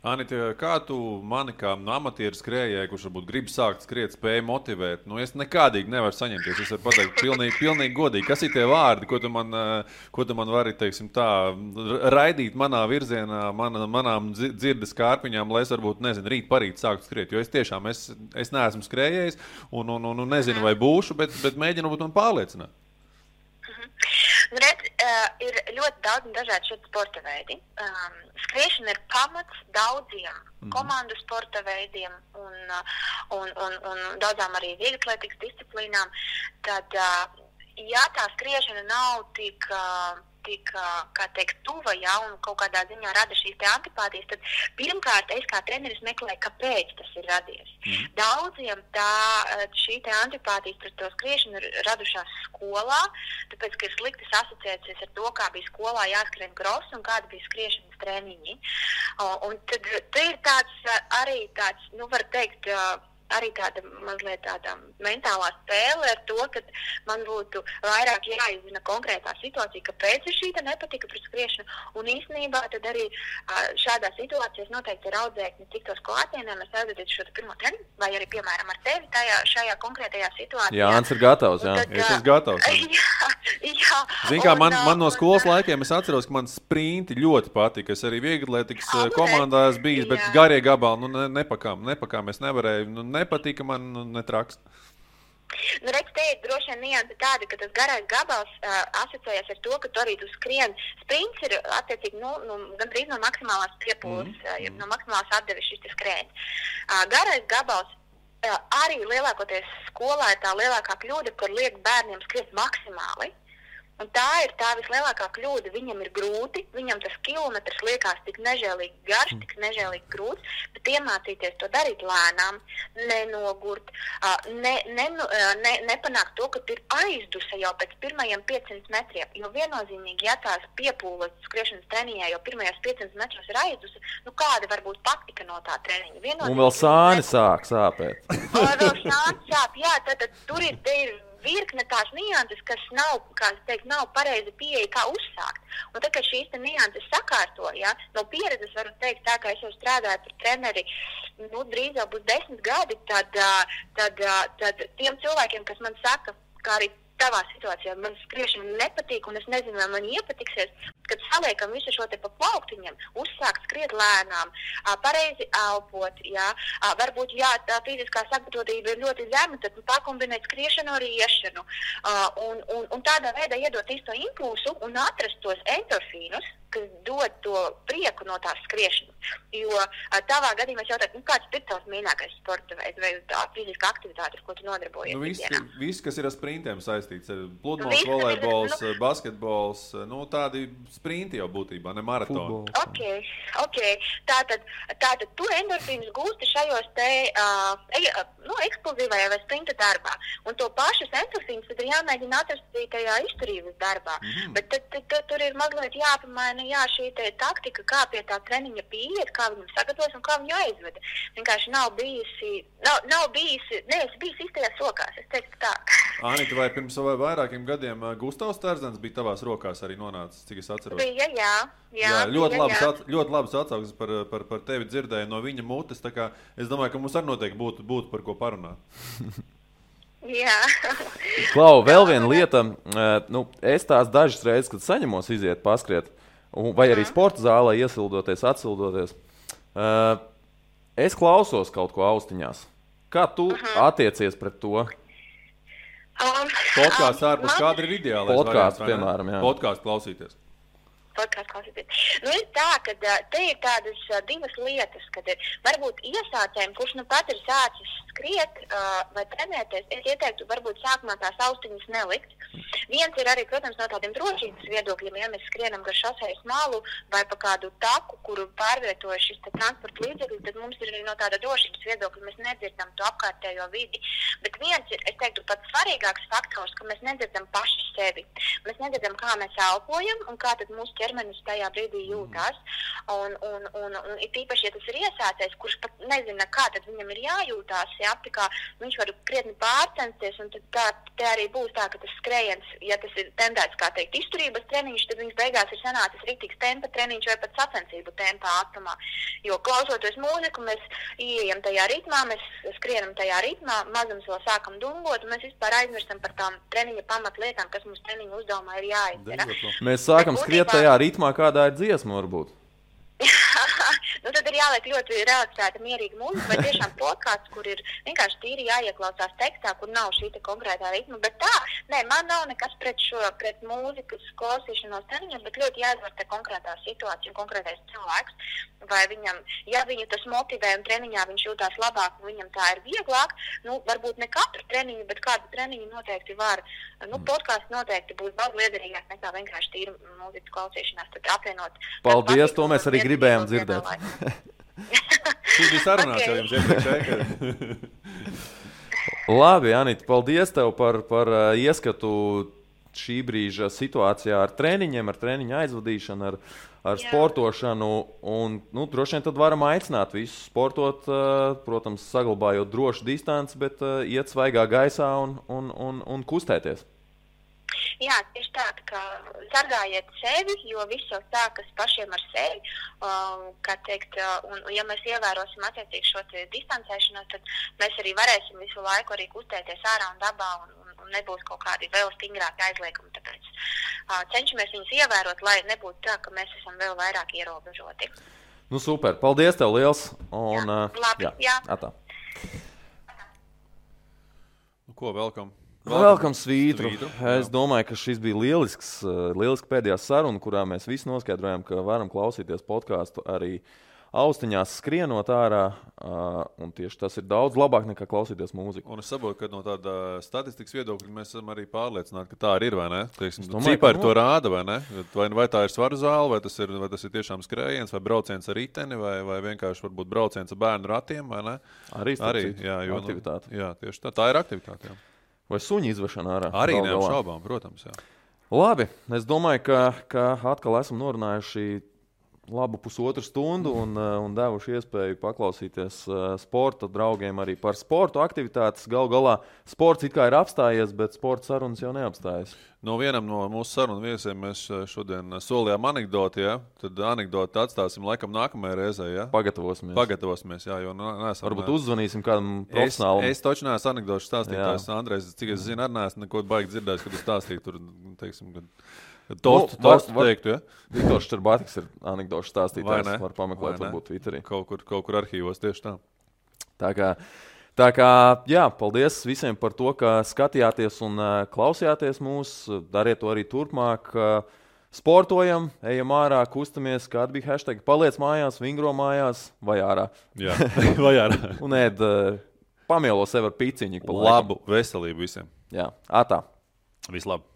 Anita, kā tu mani kā amatieru skrējēju, kurš varbūt grib sākt skriet, spēju motivēt? Es nekādīgi nevaru saņemties. Es varu pateikt pilnīgi godīgi. Kas ir tie vārdi, ko tu man vari, teiksim tā, raidīt manā virzienā, manām dzirdes kārpiņām, lai es varbūt, rīt parīt sāktu skriet? Jo es tiešām, es neesmu skrējējis un nezinu, vai būšu, bet mēģinu būt man pārliecināt. Redz, ir ļoti daudz un dažādi šeit sporta veidi. Skriešana ir pamats daudziem komandu sporta veidiem un daudzām arī vieglatlētikas disciplīnām. Tad, ja tā skriešana nav tik kā teikt, tuva, un kaut kādā ziņā rada šīs te antipātijas, tad pirmkārt es kā treneris meklēju, kāpēc tas ir radies. Daudziem šī te antipātijas pret to skriešanu ir radušās skolā, tāpēc, ka ir sliktas asociācijas ar to, kā bija skolā jāskrien cross un kāda bija skriešanas treniņi. Un tad ir tāds, var teikt, arī tāda mazliet tāda mentālā spēle ar to, ka man būtu vairāk jāizzina konkrētā situācija, kāpēc ir šī nepatika pret skriešanu. Un īstenībā tad arī šādā situācijā noteikti ir audzēkņi tiktos klātienē, mēs aizvedītu šo pirmo treniņu, vai arī, piemēram, ar tevi šajā konkrētajā situācijā. Jānis ir gatavs, jā. Es esmu gatavs. Jā. Zini kā, man no skolas laikiem es atceros, ka man sprinti ļoti patika. Es arī vieglatlētikas komandās bijis, bet garie gabali, nepakām es nevarēju, nepatika man, netraks. Redz, te ir droši vien nianse tāda, ka tas garais gabals asociējas ar to, ka tu arī tu skrien. Sprints ir attiecīgi gandrīz no maksimālās piepūles, no maksimālās atdeves šis skrējiens. Garais gabals arī lielākoties skolā ir tā lielākā kļūda, kur liek bērniem skriet maksimāli. Un tā ir tā vislielākā kļūda. Viņam ir grūti, viņam tas kilometrs liekas tik nežēlīgi garš, tik nežēlīgi grūts, bet iemācīties to darīt lēnām, nenogurt, nepanākt to, ka ir aizdusa jau pēc pirmajiem 500 metriem. Jo viennozīmīgi, ja tās piepūles skriešanas treniņā jau pirmajos 500 metros ir aizdusa, kāda var būt patika no tā treniņa? Un vēl sāni sāk sāpēt. Vēl sāni sāp, jā, tad tur ir virkne tās nianses, kas nav pareizi pieeja, kā uzsākt. Un tad, kad šīs nianses sakārto, no pieredzes varu teikt tā, ka es jau strādāju par treneri, drīz jau būs 10 gadi, tad tiem cilvēkiem, kas man saka, kā arī tavā situācijā man skriešana nepatīk, un es nezinu, vai man iepatiksies, kad saliekam visu šo te pa plauktiņiem, uzsākt skriet lēnām, pareizi elpot, jā, varbūt, jā, tā fiziskā sagatavotība ir ļoti zema, tad pakombinēt skriešanu ar iešanu, un tādā veidā iedot īsto impulsu un atrast tos endorfīnus, kas dod to prieku no tās skriešanas. Jo tavā gadījumā es jautāju, kāds ir tavs mīļākais sporta veids vai tā fiziskā aktivitāte, ar ko tu nodarbojies? Viss, kas ir ar sprintiem saistīts, ir pludmales, volejbols, basketbols, tādi sprinti jau būtībā, ne maratoni. Ok. Tātad tu endorfīnus gūsti šajos te eksplozīvajā vai sprinta darbā. Un to pašus endorfīnus tad ir jāmēģina atrast tajā izturības darbā. Bet tad tur ir mazliet jāpamaina, šī te taktika, kā pie tā treniņa pieiet, kā viņam sagatavos un kā viņu aizveda. Vienkārši nav bijusi, neesi bijis īstajās rokās, es teiktu tā. Anita, vai pirms vairākiem gadiem Gustavs Tērzens bija tavās rokās arī nonācis, cik es atceros? Bija, jā. Ļoti labas atsauksmes par tevi dzirdēju no viņa mutes, tā kā es domāju, ka mums arī noteikti būtu par ko parunāt. Jā. Klau, vēl viena lieta, es tās dažas reizes, kad saņemos iziet paskriet, vai arī sporta zālē iesildoties, atsildoties, es klausos kaut ko austiņās. Kā tu attiecies pret to? Podkāsts ārpus kāda ir ideālais podkāsts, piemēram, jā. Podkāsts klausīties. Ir tā, ka te ir tādas divas lietas, kad ir varbūt iesācējiem, kurš pat ir sācis skriet vai trenēties, es ieteiktu varbūt sākumā tās austiņas nelikt. Viens ir arī, protams, no tādiem drošības viedokļiem, ja mēs skrienam gar šosejas malu vai pa kādu taku, kuru pārvietojas šis transporta līdzeklis, tad mums ir arī no tāda drošības viedokļa, mēs nedzirdam to apkārtējo vidi. Bet viens ir, es teiktu, pats svarīgāks faktors, ka mēs nedzirdam paši sevi. Mēs nedzirdam, kā mēs elpojam un kā tad mūsu ķermenis tajā brīdī jūtās. Un it īpaši, ja tas ir iesācējs, kurš pat nezina, kā tad viņam ir jājūtās, jā, tā kā viņš var krietni pārcensties, un tad te arī būs tā, ka tas skrējiens, ja tas ir tendēts, kā teikt, izturības treniņš, tad viņš beigās ir sanācis rītīgs tempa treniņš vai pat sacensību tempā ātrumā. Jo klausoties mūziku, mēs ieejam tajā ritmā, mēs skrienam tajā ritmā, mazums vēl sākam dungot, un mēs vispār aizmirstam par tām treniņa pamatlietām, kas mums treniņa uzdevumā ir jāizdara. Mēs sākam skriet tajā ritmā, kādā ir dziesma varbūt. Tad ir jāliek ļoti relaksēta, mierīga mūzika, vai tiešām podkāsts, kur ir vienkārši tīri jāieklausās tekstā, kur nav šī konkrētā ritma. Bet tā, man nav nekas pret mūzikas klausīšanos treniņiem, bet ļoti jāizvērtē konkrētā situācija un konkrētais cilvēks. Vai viņam, ja viņu tas motivē un treniņā viņš jūtās labāk un viņam tā ir vieglāk, varbūt ne katru treniņu, bet kādu treniņu noteikti var. Podkāsts noteikti būs daudz liederīgāk nekā vienkārši tīri mūzikas klausīšanās, tad apvienot. Paldies, to mēs arī gribējām dzirdēt. Šī bija sarunāts jau jums iepriekšēji. Labi, Anita, paldies tev par ieskatu šī brīža situācijā ar treniņiem, ar treniņu aizvadīšanu, ar sportošanu. Un, droši vien tad varam aicināt visus sportot, protams, saglabājot drošu distanci, bet iet svaigā gaisā un kustēties. Jā, tieši tā, ka sargājiet sevi, jo viss jau sākas pašiem ar sevi, kā teikt, un ja mēs ievērosim attiecīgi šo distancēšanos, tad mēs arī varēsim visu laiku arī kustēties ārā un dabā un nebūs kaut kādi vēl stingrāki aizliegumi, tāpēc cenšamies viņus ievērot, lai nebūtu tā, ka mēs esam vēl vairāk ierobežoti. Super, paldies tev liels! Un, jā. Atā. Ko, welcome? Welcome svītru. Es domāju, ka šis bija lieliski pēdējā saruna, kurā mēs visi noskaidrojām, ka varam klausīties podkāstu arī austiņās skrienot ārā, un tieši tas ir daudz labāk nekā klausīties mūziku. Un es saprotu, ka no tāda statistikas viedokļa mēs esam arī pārliecināti, ka tā arī ir, vai ne? Cipari to rāda, vai ne? Vai tā ir svaru zāle, vai tas ir tiešām skrējiens, vai brauciens ar riteni, vai vienkārši varbūt brauciens ar bērnu ratiem, vai ne? Arī jā, aktivitāte. Jā, tieši tā ir aktivitāte, jā. Vai suņu izvešana ārā? Arī neapšaubām, protams, jā. Labi, es domāju, ka atkal esam norunājuši labu pusotru stundu un devuši iespēju paklausīties sporta draugiem arī par sportu aktivitātes. Galu galā sports it kā ir apstājies, bet sporta sarunas jau neapstājas. No vienam no mūsu sarunu viesiem mēs šodien solījām anekdoti, ja? Tad anekdoti atstāsim laikam nākamajai reizē, ja? Pagatavosimies, jā, jo neesam... Varbūt uzzvanīsim kādam profesionālam. Es taču neesmu anekdošu stāstītājs, Andrejs, cik es zinu, arī neesmu neko baigi dzirdējis, kad tu stāstīji tur, teiksim, Tostu teiktu, ja? Viktors Šterbātiks ir anekdošu stāstītājs, var pameklēt varbūt Twitterī. Kaut kur arhīvos tieši tā. Tā kā, jā, paldies visiem par to, ka skatījāties un klausījāties mūs. Dariet to arī turpmāk. Sportojam, ejam ārā, kustamies, kāda bija hashtag. Paliec mājās, vingro mājās vai ārā. Jā, vai ārā. Un pamielo sev ar piciņu. Labu veselību visiem. Jā, atā. Vislabāk.